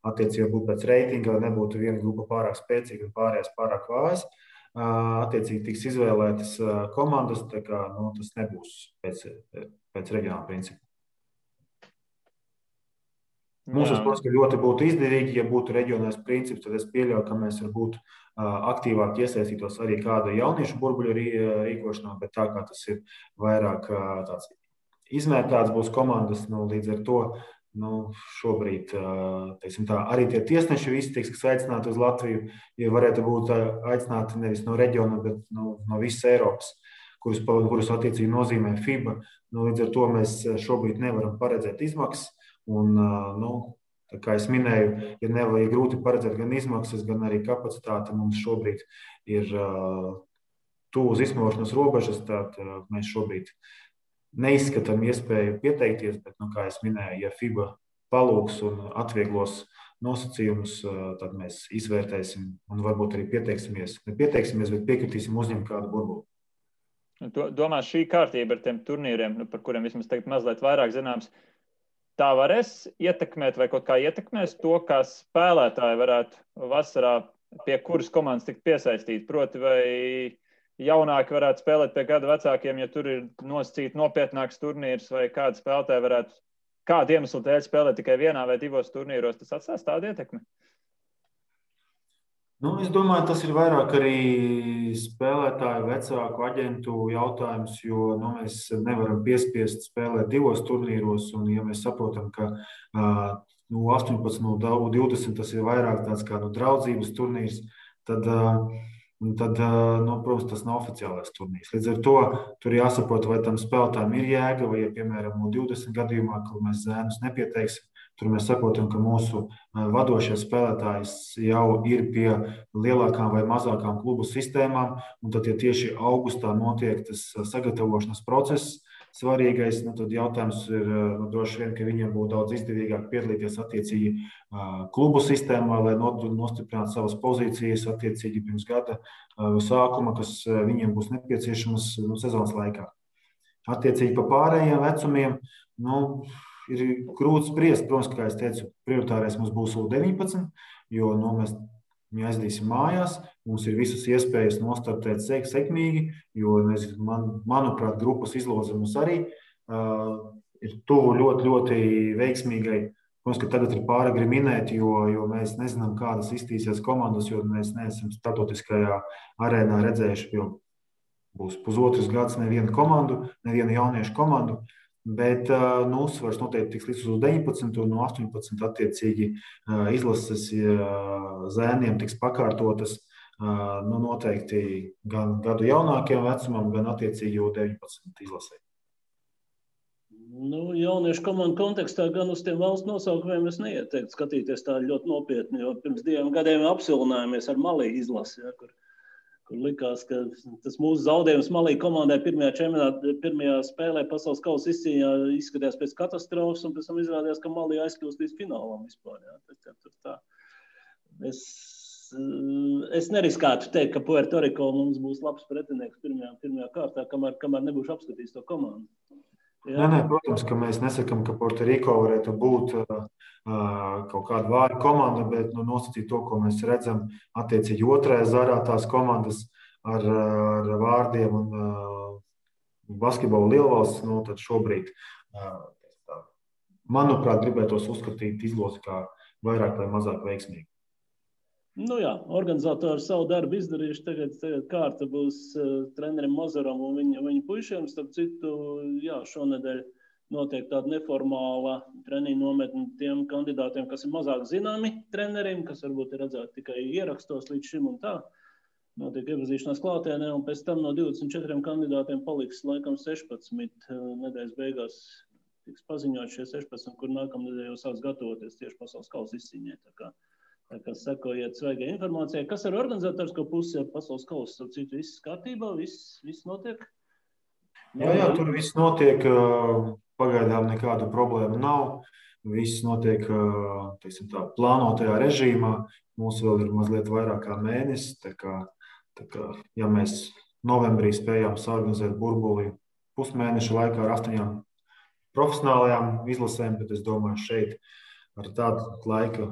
attiecībā būtu pēc reitinga, lai nebūtu viena grupa pārāk spēcīga un pārējās pārāk vājas. Attiecīgi tiks izvēlētas komandas, tā kā tas nebūs pēc reģionāla principa. Mums, protams, ļoti būtu izdevīgi, ja būtu reģionālais princips, tad es pieļauju, ka mēs varbūt aktīvāk iesaistītos arī kāda jauniešu burbuļu rīkošanā, bet tā kā tas ir vairāk tāds izmērtāts būs komandas, līdz ar to šobrīd, teiksim tā, arī tie tiesneši visi tiks aicināti uz Latviju, ja varētu būt aicināti nevis no reģiona, bet no visas Eiropas, kurus attiecīgi nozīmē FIBA. Līdz ar to mēs šobrīd nevaram paredzēt izmaksas. Un, tā kā es minēju, ir grūti paredzēt gan izmaksas, gan arī kapacitāti. Mums šobrīd ir tuvu uz izsmelšanas robežas, tad mēs šobrīd neizskatām iespēju pieteikties, bet, kā es minēju, ja FIBA palūgs un atvieglos nosacījumus, tad mēs izvērtēsim un varbūt arī pieteiksimies, bet piekritīsim uzņemt kādu burbuli. Domā, šī kārtība ar tiem turnīriem, par kuriem vismaz tagad mazliet vairāk zināms, tā varēs ietekmēt vai kaut kā ietekmēs to, kā spēlētāji varētu vasarā pie kuras komandas tikt piesaistīt. Proti, vai jaunāki varētu spēlēt pie gada vecākiem, ja tur ir nosacīti nopietnāks turnīrs, vai kādi spēlētāji varētu kādu iemeslu dēļ spēlēt tikai vienā vai divos turnīros, tas atstās tādu ietekmi? Es domāju, tas ir vairāk arī spēlētāju vecāku aģentu jautājums, jo mēs nevaram piespiest spēlēt divos turnīros. Un, ja mēs saprotam, ka 18, 20 tas ir vairāk tāds kā draudzības turnīrs, tad, protams, tas nav oficiālais turnīrs. Līdz ar to tur jāsaprot, vai tam spēlētājiem ir jēga, vai, ja, piemēram, 20 gadījumā, kur mēs zēnus nepieteiksim, tur mēs saprotam, ka mūsu vadošie spēlētāji jau ir pie lielākām vai mazākām klubu sistēmām, un tad, ja tieši augustā notiek tas sagatavošanas process, svarīgais, tad jautājums ir droši vien, ka viņiem būtu daudz izdevīgāk piedalīties attiecīgi klubu sistēmā, lai nostiprinātu savas pozīcijas attiecīgi pirms gada sākuma, kas viņiem būs nepieciešamas sezonas laikā. Attiecīgi pa pārējiem vecumiem, ir grūti spriest. Protams, kā es teicu, prioritārais mums būs U19, jo mēs viņu aizdīsim mājās. Mums ir visas iespējas nostartēt sekmīgi, jo, manuprāt, grupas izloze mums arī ir tuvu ļoti, ļoti veiksmīgai. Protams, ka tagad ir pāragri minēt, jo mēs nezinām, kādas iztīsies komandas, jo mēs neesam starptautiskajā arēnā redzējuši, jo būs pusotrs gads nevienu komandu, nevienu jauniešu komandu. Bet uzsvars noteikti tiks līdz uz 19 un no 18 attiecīgi izlases zēniem tiks pakārtotas noteikti gan gadu jaunākajam vecumam, gan attiecīgi jau 19 izlasē. Jauniešu komandu kontekstā gan uz tiem valsts nosaukumiem es neieteiktu skatīties tā ļoti nopietni, jo pirms 2 gadiem apsilinājāmies ar Malī izlasi, kur likās, ka tas mūsu zaudējums Malī komandai pirmajā spēlē pasaules kausa izcīņā izskatījās pēc katastrofas, un pēc tam izrādījās, ka Malī aizkļūst līdz finālam vispār. Tā. Es neriskētu teikt, ka Puerto Rico mums būs labs pretinieks pirmajā kārtā, kamēr nebūšu apskatījis to komandu. Nē, protams, ka mēs nesakām, ka Puerto Rico varētu būt kaut kāda vāja komanda, bet nosacīt to, ko mēs redzam attiecīgi otrajā zarā tās komandas ar vārdiem un basketbolu lielvalsts, tad šobrīd, manuprāt, gribētos uzskatīt izlozi kā vairāk vai mazāk veiksmīgi. Organizatori savu darbu izdarījuši. Tagad kārta būs trenerim Mozaram un viņa puišiem. Starp citu, šonedēļ notiek tāda neformāla treniņa nometne tiem kandidātiem, kas ir mazāk zināmi treneriem, kas varbūt ir redzēti tikai ierakstos līdz šim un tā. Notiek iepazīšanās klātienē, un pēc tam no 24 kandidātiem paliks laikam 16 nedēļas beigās. Tiks paziņot šie 16, kur nākamnedēļ jau sāks gatavoties tieši pasaules kausa izcīņai. Tā kā sekojiet svaigai informācijai. Kas ar organizatorisko pusi ar pasaules kausu? Starp citu, viss kārtībā, viss notiek? Jā, tur viss notiek. Pagaidām nekādu problēmu nav. Viss notiek plānotajā režīmā. Mums vēl ir mazliet vairāk kā mēnesis. Tā kā, ja mēs novembrī spējām saorganizēt burbuli pusmēneša laikā ar 8 profesionālajām izlasēm, bet es domāju, šeit ar tādu laika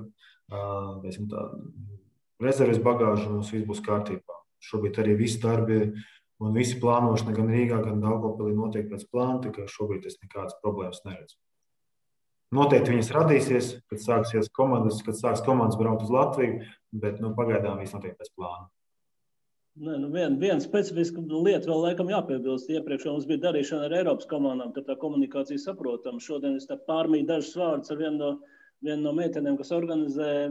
rezerves bagāžu mums viss būs kārtībā. Šobrīd arī visi darbi un visi plānošana gan Rīgā, gan Daugavpilī notiek pēc plāna, tā kā šobrīd es nekādas problēmas neredzu. Noteikti viņas radīsies, kad sāks komandas braukt uz Latviju, bet pagaidām viss notiek pēc plāna. Viena specifiska lieta vēl laikam jāpiebilst. Iepriekš mums bija darīšana ar Eiropas komandām, tad tā komunikācija saprotama. Šodien es pārmīju dažus vārdus ar vienu no meitenēm, kas organizē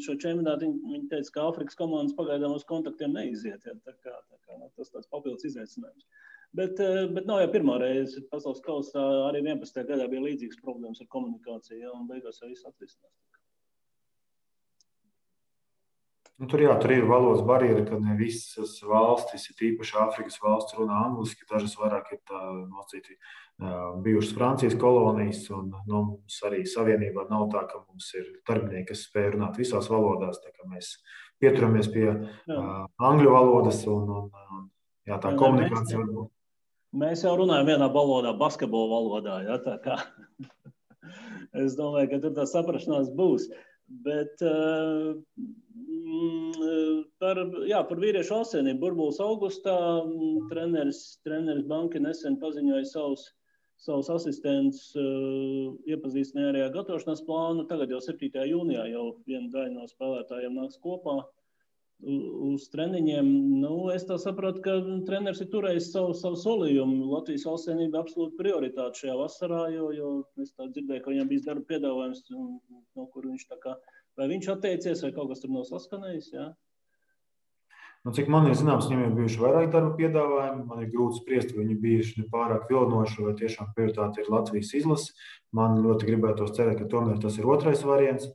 šo čempionātu. Viņa teica, ka Āfrikas komandas pagaidām uz kontaktiem neiziet. Ja? Tā kā tas tāds papildus izaicinājums. Bet nav jau pirmā reize. Pasaules kausā arī 11. gadā bija līdzīgas problēmas ar komunikāciju, ja, un beigās jau viss atrisinās. Tur ir valodas barjera, ka ne visas valstis, tīpaši Āfrikas valsts, runā angliski. Dažas vairāk ir nosacīti bijušas Francijas kolonijas, un mums arī savienībā nav tā, ka mums ir darbinieki, kas spēj runāt visās valodās. Tā kā mēs pieturamies pie angļu valodas un tā komunikācija var būt. Mēs jau runājam vienā valodā, basketbola valodā. Ja, tā kā. Es domāju, ka tur tā saprašanās būs. Bet par vīriešu valstsienību burbulis augustā treneris Banki nesen paziņoja savus asistentus, iepazīstināja arī ar gatavošanās plānu. Tagad jau 7. jūnijā jau viena daļa no spēlētājiem nāks kopā uz treniņiem. Es tā sapratu, ka treneris ir turējis savu solījumu. Latvijas valstsienība absolūti prioritāte šajā vasarā, jo es tā dzirdēju, ka viņam bijis darba piedāvājums, no kur viņš vai viņš atteicies, vai kaut kas tur nav saskanējis, jā? Cik man ir zināms, viņam ir bijuši vairāk darba piedāvājumi. Man ir grūti spriest, vai viņi bijuši pārāk vilinoši, vai tiešām prioritāte ir Latvijas izlase. Man ļoti gribētos cerēt, ka tomēr tas ir otrais variants.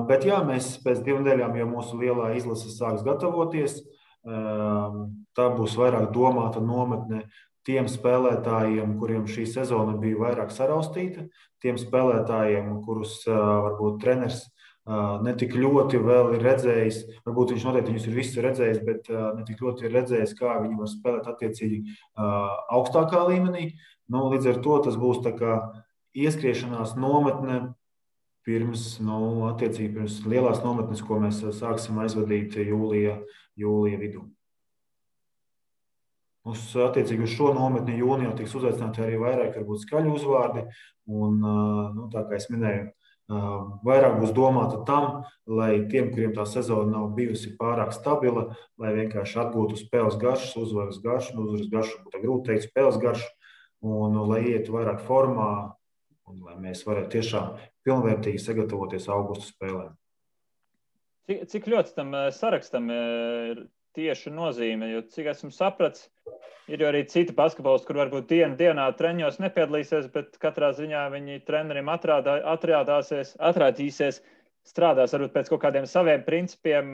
Bet jā, mēs pēc 2 nedēļām, ja mūsu lielā izlase sāks gatavoties, tā būs vairāk domāta nometne tiem spēlētājiem, kuriem šī sezona bija vairāk saraustīta, tiem spēlētājiem, kurus varbūt treneris netik ļoti vēl ir redzējis, varbūt viņš noteikti viņus ir visus redzējis, bet netik ļoti ir redzējis, kā viņi var spēlēt attiecīgi augstākā līmenī. Līdz ar to tas būs tā kā ieskriešanās nometne pirms lielās nometnes, ko mēs sāksim aizvadīt jūlija vidū. Attiecīgi uz šo nometni jūnijā tiks uzaicināti arī vairāk varbūt skaļu uzvārdi, un tā kā es minēju, vairāk būs domāta tam, lai tiem, kuriem tā sezona nav bijusi pārāk stabila, lai vienkārši atgūtu spēles garšas, uzvaras garšu, būtu grūti teikt spēles garšu, un lai ietu vairāk formā, un lai mēs varētu tiešām pilnvērtīgi sagatavoties augusta spēlēm. Cik ļoti tam sarakstam ir tieši nozīme, jo cik esmu sapratis, ir jau arī citi basketbolisti, kur varbūt dienā treņos nepiedalīsies, bet katrā ziņā viņi trenerim atrādīsies, strādās varbūt pēc kaut kādiem saviem principiem.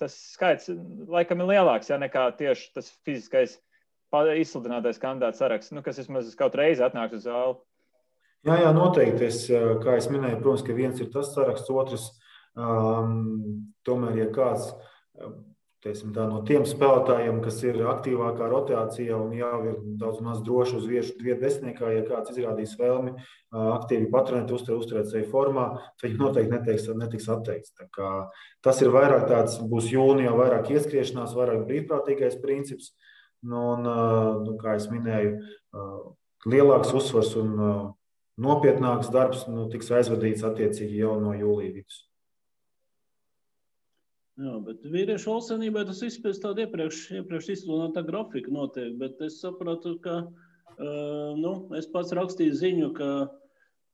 Tas skaits laikam ir lielāks, ja nekā tieši tas fiziskais izsludinātais kandidāts saraksts, kas vismaz kaut reizi atnāks uz zāli. Jā, noteikti. Kā es minēju, protams, ka viens ir tas saraksts, otrs, tomēr, ja kāds no tiem spēlētājiem, kas ir aktīvākā rotācijā un jau ir daudz maz droši uz vietu desmitniekā, ja kāds izrādīs vēlmi aktīvi patrenēt, uzturēt sevi formā, tad viņi noteikti netiks atteikts. Tā kā tas ir vairāk tāds, būs jūnijā vairāk ieskriešanās, vairāk brīvprātīgais princips, un, kā es minēju, lielāks uzsvars un nopietnāks darbs tiks aizvadīts attiecīgi jau no jūlija vidus. Jā, bet vīriešu valstsienībai tas viss pēc tāda iepriekš izsludinātā grafika notiek, bet es sapratu, ka es pats rakstīju ziņu,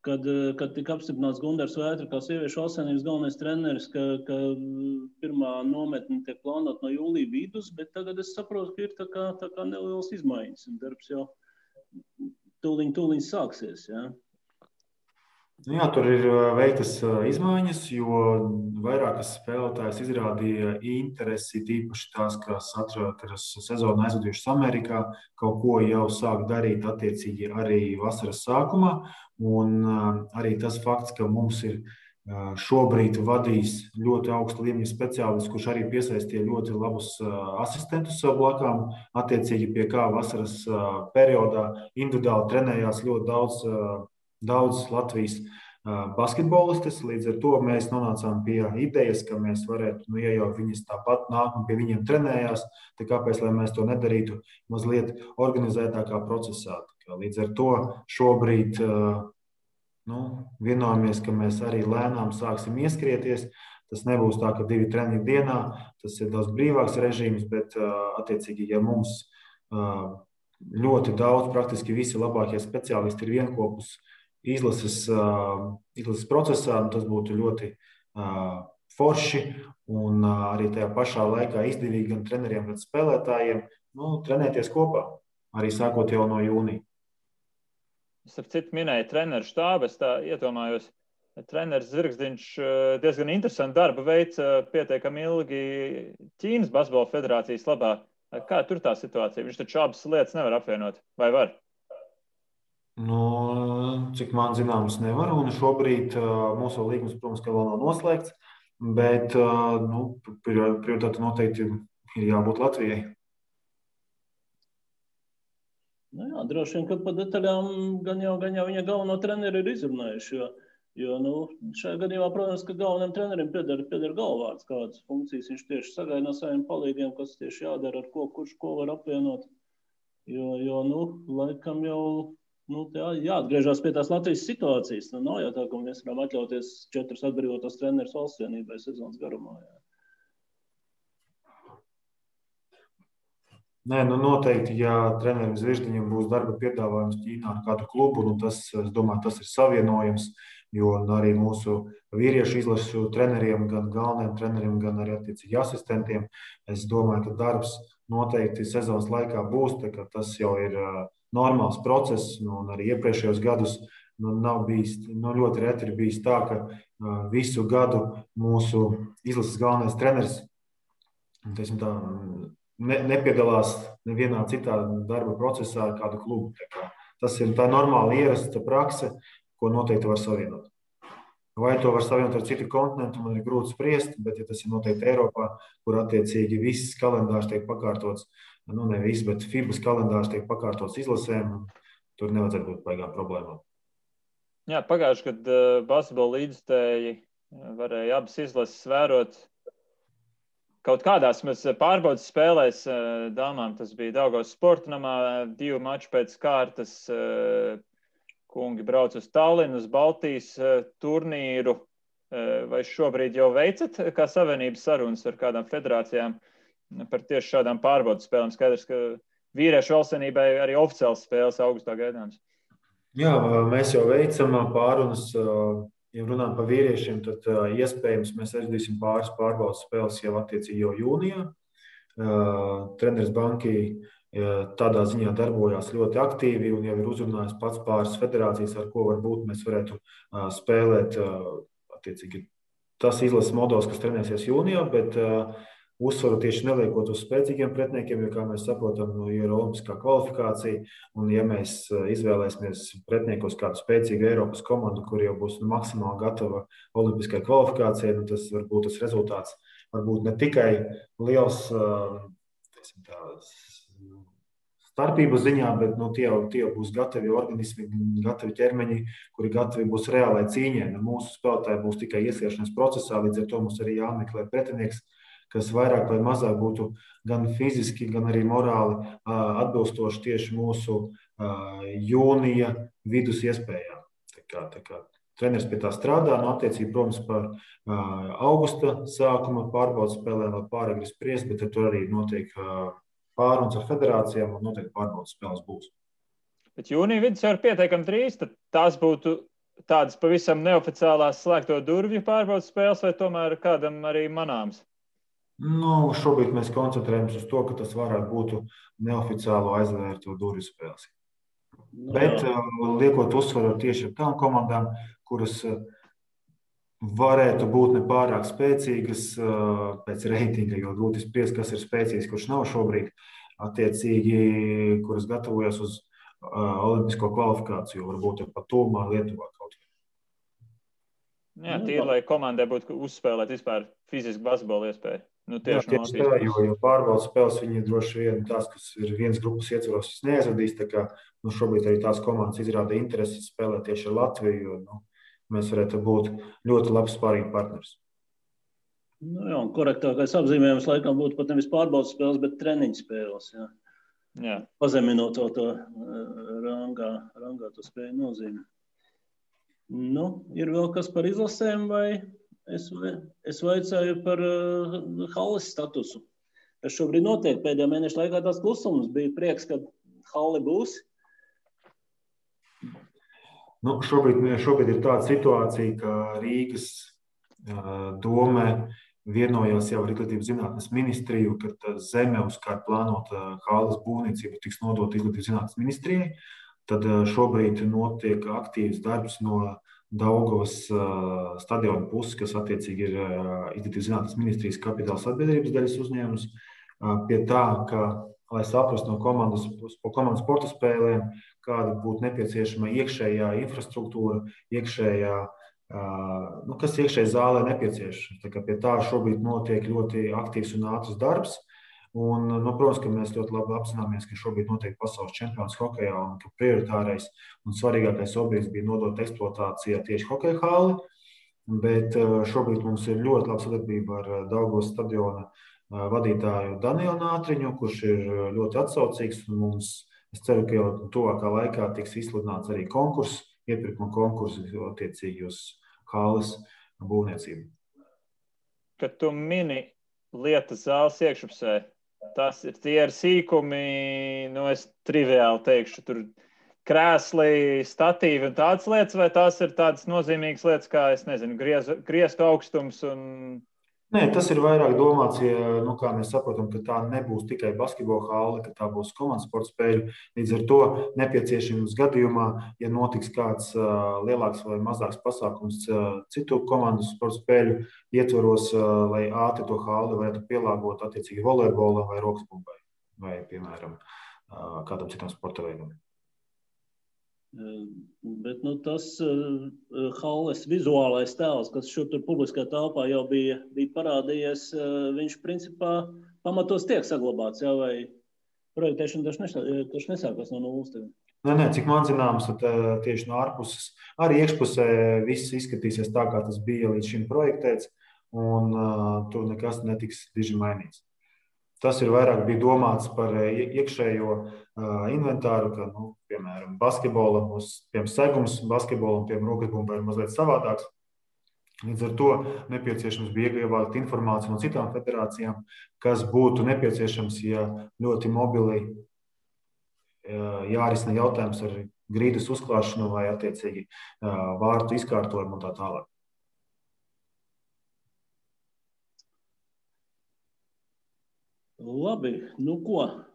kad tika apstiprināts Gundars Vētra kā sieviešu valstsienības galvenais treneris, ka pirmā nometne tiek plānota no jūlija vidus, bet tagad es saprotu, ka ir tā kā nelielas izmaiņas, un darbs jau tūliņ sāksies, jā. Jā, tur ir veiktas izmaiņas, jo vairākas spēlētājas izrādīja interesi, tīpaši tās, kas atrodas sezonu aizvadījušas Amerikā, kaut ko jau sāk darīt attiecīgi arī vasaras sākumā. Un arī tas fakts, ka mums ir šobrīd vadījis ļoti augsta līmeņa speciālists, kurš arī piesaistīja ļoti labus asistentus sev blakām, attiecīgi pie kā vasaras periodā individuāli trenējās ļoti daudz Latvijas basketbolistes. Līdz ar to mēs nonācām pie idejas, ka mēs varētu, ja jau viņas tāpat nāk un pie viņiem trenējās, tad kāpēc lai mēs to nedarītu mazliet organizētākā procesā. Līdz ar to šobrīd vienojāmies, ka mēs arī lēnām sāksim ieskrieties. Tas nebūs tā, ka 2 treniņi dienā, tas ir daudz brīvāks režīms, bet attiecīgi, ja mums ļoti daudz, praktiski visi labākie speciālisti ir vienkopus izlases procesā, tas būtu ļoti forši un arī tajā pašā laikā izdevīgi gan treneriem, gan spēlētājiem trenēties kopā, arī sākot jau no jūnija. Es ar citu minēju treneru štābu, es tā iedomājos, treneris Zirgzdiņš diezgan interesantu darbu veic pietiekami ilgi Ķīnas basketbola federācijas labā. Kā tur tā situācija? Viņš taču abas lietas nevar apvienot, vai var? Cik man zināms, nevar. Un šobrīd mūsu līgums, protams, ka vēl nav noslēgts, bet prioritāte noteikti ir jābūt Latvijai. Jā, droši vien, ka pa detaļām gan jau viņa galveno treneri ir izrunājuši, jo šajā gadījumā, protams, ka galvenajam trenerim pieder galvvārds, kādas funkcijas viņš tieši sagaida no saviem palīgiem, kas tieši jādara, ar kurš ko var apvienot. Jo laikam jau jāatgriežās pie tās Latvijas situācijas. Nav jau tā, ka mēs varam atļauties 4 atbrīvotos trenerus valsts vienībai sezonas garumā. Jā. Nē, noteikti, ja trenerim Zvirgzdiņam būs darba piedāvājums Ķīnā ar kādu klubu, tas, es domāju, tas ir savienojams, jo arī mūsu vīriešu izlašu treneriem, gan galvenajiem treneriem, gan arī attiecīgi asistentiem, es domāju, ka darbs noteikti sezonas laikā būs, tā ka tas jau ir normāls process, un arī iepriekšējos gadus nav bijis, ļoti reti ir bijis tā, ka visu gadu mūsu izlases galvenais treneris, teiksim tā, nepiedalās nevienā citā darba procesā ar kādu klubu. Tas ir tā normāla ierasta prakse, ko noteikti var savienot. Vai to var savienot ar citu kontinentu, man ir grūti spriest, bet ja tas ir noteikti Eiropā, kur attiecīgi viss kalendārs tiek pakārtots, ne viss, bet FIBAS kalendārs tiek pakārtots izlasēm, tur nevajadzētu būt baigām problēmām. Jā, pagājuši, kad basketbola līdzstēji varēja abas izlases vērot. Kaut kādās mēs pārbaudas spēlēs dāmām, tas bija Daugavas sporta namā, 2 mači pēc kārtas, kungi brauc uz Tallinu, uz Baltijas turnīru. Vai šobrīd jau veicat kā savienības sarunas ar kādām federācijām par tieši šādām pārbaudas spēlēm? Skaidrs, ka vīriešu valstsvienībai arī oficiāls spēles augustā gaidāms. Jā, mēs jau veicam pārunas. Ja runājam par vīriešiem, tad iespējams mēs aizvadīsim pāris pārbaudas spēles jau attiecīgi jau jūnijā. Treneris Banki tādā ziņā darbojās ļoti aktīvi un jau ir uzrunājis pats pāris federācijas, ar ko varbūt mēs varētu spēlēt attiecīgi tas izlases modelis, kas trenēsies jūnijā, bet uzsvaru tieši neliekot uz spēcīgiem pretiniekiem, jo, kā mēs saprotam, ir olimpiskā kvalifikācija, un ja mēs izvēlēsimies pretiniekos kādu spēcīgu Eiropas komandu, kur jau būs maksimāli gatava olimpiskai kvalifikācijai, tas var būt tas rezultāts, varbūt ne tikai liels starpību ziņā, bet tie būs gatavi organismi, gatavi ķermeņi, kuri gatavi būs reālai cīņai. Mūsu spēlētāji būs tikai iesiešanās procesā, līdz ar to mums arī jāmeklē pretinieks, kas vairāk vai mazāk būtu gan fiziski, gan arī morāli atbilstoši tieši mūsu jūnija vidus iespējām. Tā kā treneris pie tā strādā, attiecīgi, protams, par augusta sākuma pārbaudas spēlēm vēl pāragri spriest, bet tur arī notiek pārunas ar federācijām un noteikti pārbaudas spēles būs. Bet jūnija vidus jau ir pietiekami drīz, tad tās būtu tādas pavisam neoficiālās slēgto durvju pārbaudas spēles vai tomēr kādam arī manāms? Šobrīd mēs koncentrējamies uz to, ka tas varētu būt neoficiālo aizvērto durvju spēles. Bet liekot uzsvaru tieši ar tām komandām, kuras varētu būt nepārāk spēcīgas pēc reitinga, jo grūti spriest, kas ir spēcīgs, kurš nav šobrīd, attiecīgi, kuras gatavojas uz olimpisko kvalifikāciju, varbūt pat tuvumā Lietuvā kaut kā. Jā, tīri, lai komandai būtu uzspēlēt vispār fizisku basketbolu iespēju. Tieši tā, jo pārbaudas spēles viņi droši vien tās, kas ir vienas grupas ietvaros, neizradīs, tā kā šobrīd arī tās komandas izrāda interesi spēlēt tieši ar Latviju, jo mēs varētu būt ļoti labs spārīgi partners. Jā, un korektākais apzīmējums laikam būtu pat nevis pārbaudas spēles, bet treniņu spēles, jā. Jā. Pazeminot to rangā to spēju nozīmi. Ir vēl kas par izlasēm, vai es vaicāju par halles statusu. Tas šobrīd notiek pēdējā mēneša laikā tās klusums. Bija prieks, ka halle būs. Šobrīd ir tāda situācija, ka Rīgas dome vienojās jau ar Izglītības zinātnes ministriju, ka zeme, uz kā plānota halles būvniecība, tiks nodota Izglītības zinātnes ministrijai. Tad šobrīd notiek aktīvs darbs no Daugavas stadiona puses, kas attiecīgi ir Izglītības zinātnes ministrijas kapitāla sabiedrības daļas uzņēmums, pie tā, ka, lai saprastu no komandas sporta spēlēm, kāda būtu nepieciešama iekšējā infrastruktūra, kas iekšēji zālē nepieciešams. Tā kā pie tā šobrīd notiek ļoti aktīvs un ātrs darbs. Un, protams, ka mēs ļoti labi apzināmies, ka šobrīd notiek pasaules čempionāts hokejā un ka prioritārais un svarīgākais objekts bija nodot eksploatācijā tieši hokeja halli. Bet šobrīd mums ir ļoti laba sadarbība ar Daugavas stadiona vadītāju Danielu Nātriņu, kurš ir ļoti atsaucīgs. Es ceru, ka jau tuvākā laikā tiks izsludināts arī konkurss, iepirkuma konkurss attiecīgi uz halles būvniecību. Kad tu mini lietas zāles iekšpusē, tie ir sīkumi, es triviāli teikšu, tur krēsli, statīvi un tādas lietas, vai tās ir tādas nozīmīgas lietas, kā, es nezinu, griestu augstums un... Nē, tas ir vairāk domāts, kā mēs saprotam, ka tā nebūs tikai basketbola halle, ka tā būs komandas sporta spēļu. Līdz ar to nepieciešams gadījumā, ja notiks kāds lielāks vai mazāks pasākums citu komandas sporta spēļu ietvaros, lai ātri to halli varētu pielāgot attiecīgi volejbolam vai rokas bumbai vai, piemēram, kādam citam sporta veidam. Bet tas halles vizuālais tēls, kas šur tur publiskā telpā jau bija parādījies, viņš principā pamatos tiek saglabāts, jā, vai projektēšana taču nesākās no nulles? Nē, cik man zināms, tad tieši no ārpuses, arī iekšpusē viss izskatīsies tā, kā tas bija līdz šim projektēts, un tur nekas netiks diži mainīts. Tas ir vairāk bija domāts par iekšējo inventāru, ka, piemēram, basketbolam, segums basketbolam, rokas bumbai ir mazliet savādāks. Līdz ar to nepieciešams bija iegūt informāciju no citām federācijām, kas būtu nepieciešams, ja ļoti mobili jārisina jautājums ar grīdas uzklāšanu vai attiecīgi vārtu izkārtojumu un tā tālāk. Labi, ko?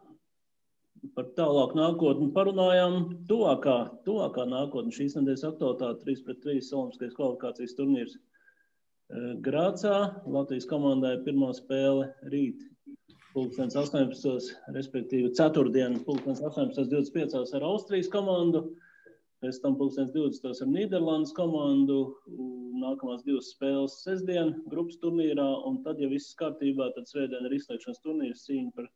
Par tālāk nākotni parunājām. Tuvākā nākotne šīs nedēļas aktualitāte 3-3 olimpiskais kvalifikācijas turnīrs Grācā. Latvijas komandai pirmā spēle rīt 18. respektīvi ceturtdien 18.25 ar Austrijas komandu. Pēc tam 2020 ar Nīderlandes komandu, nākamās divas spēles sestdien grupas turnīrā, un tad, ja viss kārtībā, tad svētdien ir izslēgšanas turnīrs cīņa par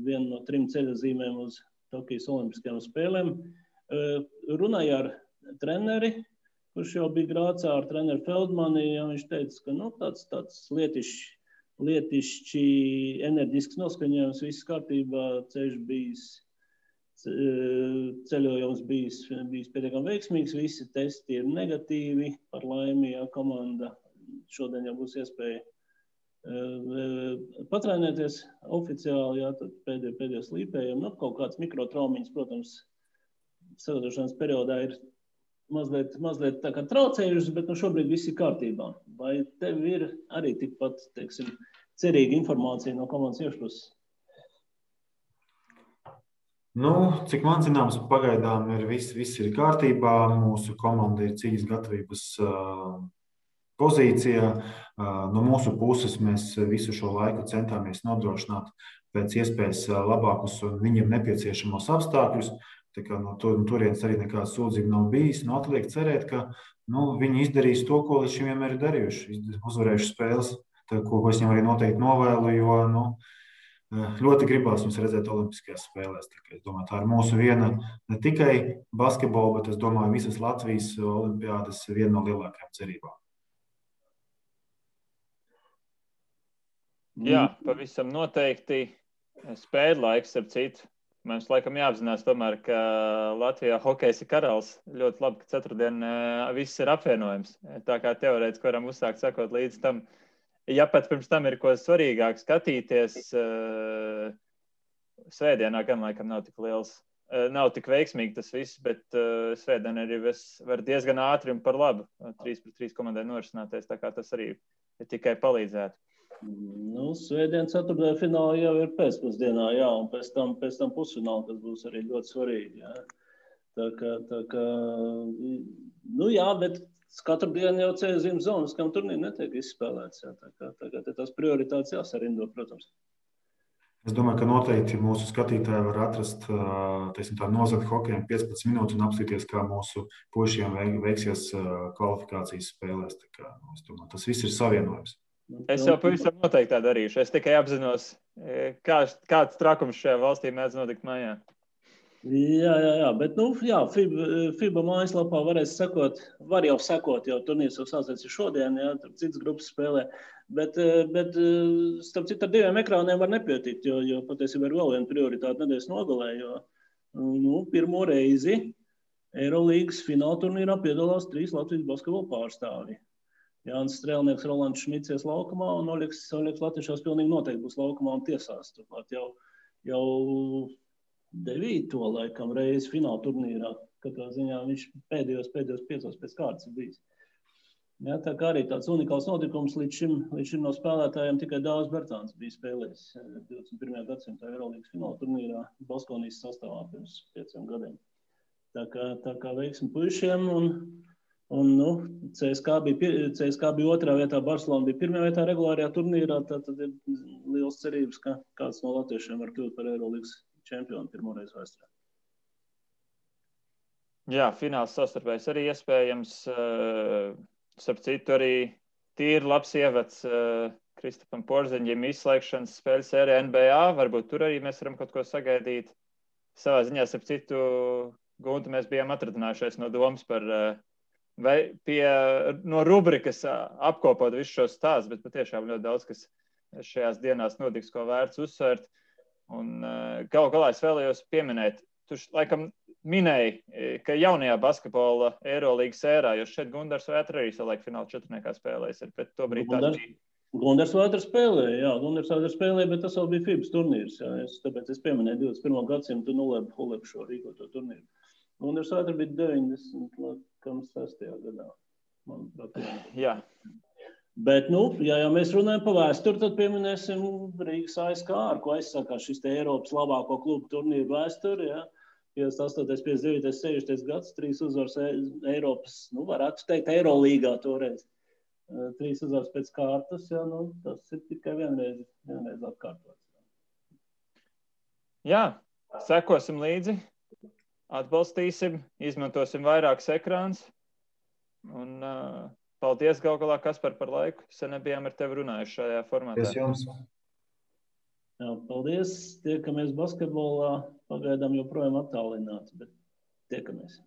vienu no 3 ceļazīmēm uz Tokijas olimpiskajām spēlēm. Runāja ar treneri, kurš jau bija Grācā ar treneru Feldmani, ja viņš teica, ka tāds lietišķi enerģisks noskaņojums, viss kārtībā, ceļojums bijis pietiekami veiksmīgs, visi testi ir negatīvi, par laimi, ja komanda šodien jau būs iespēja patrenēties oficiāli, jā, tad pēdējos līpējiem, kaut kāds mikrotraumiņas, protams, sagatavošanas periodā ir mazliet tā kā traucējušas, bet šobrīd viss ir kārtībā. Vai tev ir arī tikpat, cerīga informācija no komandas iekšpuses? Nu, cik man zināms, pagaidām viss ir kārtībā. Mūsu komanda ir cīņas gatavības pozīcijā. No mūsu puses mēs visu šo laiku centāmies nodrošināt pēc iespējas labākus un viņiem nepieciešamos apstākļus. Tā kā no turienes arī nekāda sūdzība nav bijis. Atliek cerēt, ka viņi izdarīs to, ko līdz šim vienmēr ir darījuši. Uzvarējuši spēles, ko es viņam arī noteikti novēlu, jo ļoti gribās viņus redzēt Olimpiskajās spēlēs. Es domāju, tā ir mūsu viena ne tikai basketbola, bet es domāju, visas Latvijas olimpiādas viena no lielākajām cerībām. Jā, pavisam noteikti spēļu laiks ar citu. Mums laikam jāapzinās tomēr, ka Latvijā hokejs ir karalis. Ļoti labi, ka ceturtdien viss ir apvienojums. Tā kā teorētiski varam uzsākt sakot līdz tam. Ja pat pirms tam ir ko svarīgāk skatīties, svētdienā gan laikam nav tik liels. Nav tik veiksmīgi tas viss, bet svētdien arī var diezgan ātri un par labu 3-3 komandai norisināties. Tā kā tas arī tikai palīdzētu. Svētdien ceturtdien fināli jau ir pēcpusdienā, jā, un pēc tam pusfināli, kas būs arī ļoti svarīgi, jā. Tā kā, jā, bet katru dienu jau ceļzīmes zonas, kam turnīri netiek izspēlēts, jā, tā kā tās prioritātes jāsarindo, protams. Es domāju, ka noteikti mūsu skatītāji var atrast, nozagt hokejam 15 minūtes un apstīties, kā mūsu puišiem veiksies kvalifikācijas spēlēs. Tā kā, es domāju, tas viss ir savienojums. Es jau pavisam noteikti tā darīšu. Es tikai apzinos, kāds trakums šajā valstī mēdz notikt mājā. Jā, bet FIBA mājaslapā varēs sekot, var jau sekot, jau turnīrs jau sācies šodien, jā, tur citas grupas spēlē, bet starp citu ar 2 ekrāniem var nepietikt, jo patiesībā ir vēl viena prioritāte nedēļas nogalē, jo pirmo reizi Eirolīgas fināla turnīrā piedalās 3 Latvijas basketbola pārstāvji. Jānis Strēlnieks, Rolands Šmicies laukumā un Oļegs Latviešās pilnīgi noteikti būs laukumā un tiesās. Turklāt jau 9. laikam reizi fināla turnīrā. Katrā ziņā viņš pēdējos 5 pēc kārtas ir bijis. Jā, tā kā arī tāds unikāls notikums līdz šim no spēlētājiem tikai Dāvis Bertāns bija spēlējis 21. gadsimta Eirolīgas fināla turnīrā Baskonijas sastāvā pirms 5 gadiem. Tā kā veiksmi puišiem un CSK bija 2. vietā, Barcelona bija 1. vietā regulārajā turnīrā, tad ir liels cerības, ka kāds no latviešiem var kļūt par Eirolīgas čempionu pirmoreiz vēsturē. Jā, fināls savstarpējs arī iespējams. Starp citu arī tīri labs ievads Kristapam Porziņģim izslēgšanas spēļu sērijā NBA. Varbūt tur arī mēs varam kaut ko sagaidīt. Savā ziņā, starp citu, Guntu mēs bijām atradinājušies no domas par no rubrikas apkopot visu šo stāstu, bet patiešām ļoti daudz, kas šajās dienās notiks, ko vērts uzsvērt. Un galu galā es vēlējos pieminēt, tu laikam minēji, ka jaunajā basketbola Eirolīgas ērā, jo šeit Gundars Vētra arī savulaik fināla 4. spēlēs ir, bet to brīd tā bija. Gundars Vētra spēlēja, bet tas vēl bija FIBAS turnīrs, jā. Tāpēc es pieminēju 21. gadsimtu Hulebu šo rīkoto turnīru. Gundars Vētra bija 96. gadā, manuprāt. Jā. Bet, ja jau mēs runājam par vēsturi, tad pieminēsim Rīgas ASK, ar ko aizsākās šis Eiropas labāko klubu turnīru vēsturi, jā. 58. 59. 60. gads, 3 uzvaras Eiropas, varētu teikt, Eirolīgā toreiz. 3 uzvaras pēc kārtas, jā, tas ir tikai vienreiz atkārtots. Jā, sekosim līdzi, atbalstīsim, izmantosim vairākus ekrānus. Un paldies galu galā, Kaspar, par laiku. Sen nebijām ar tevi runājuši šajā formātā. Paldies jums. Jā, paldies. Tiekamies basketbolā. Pagaidām joprojām attālināti, bet tiekamies.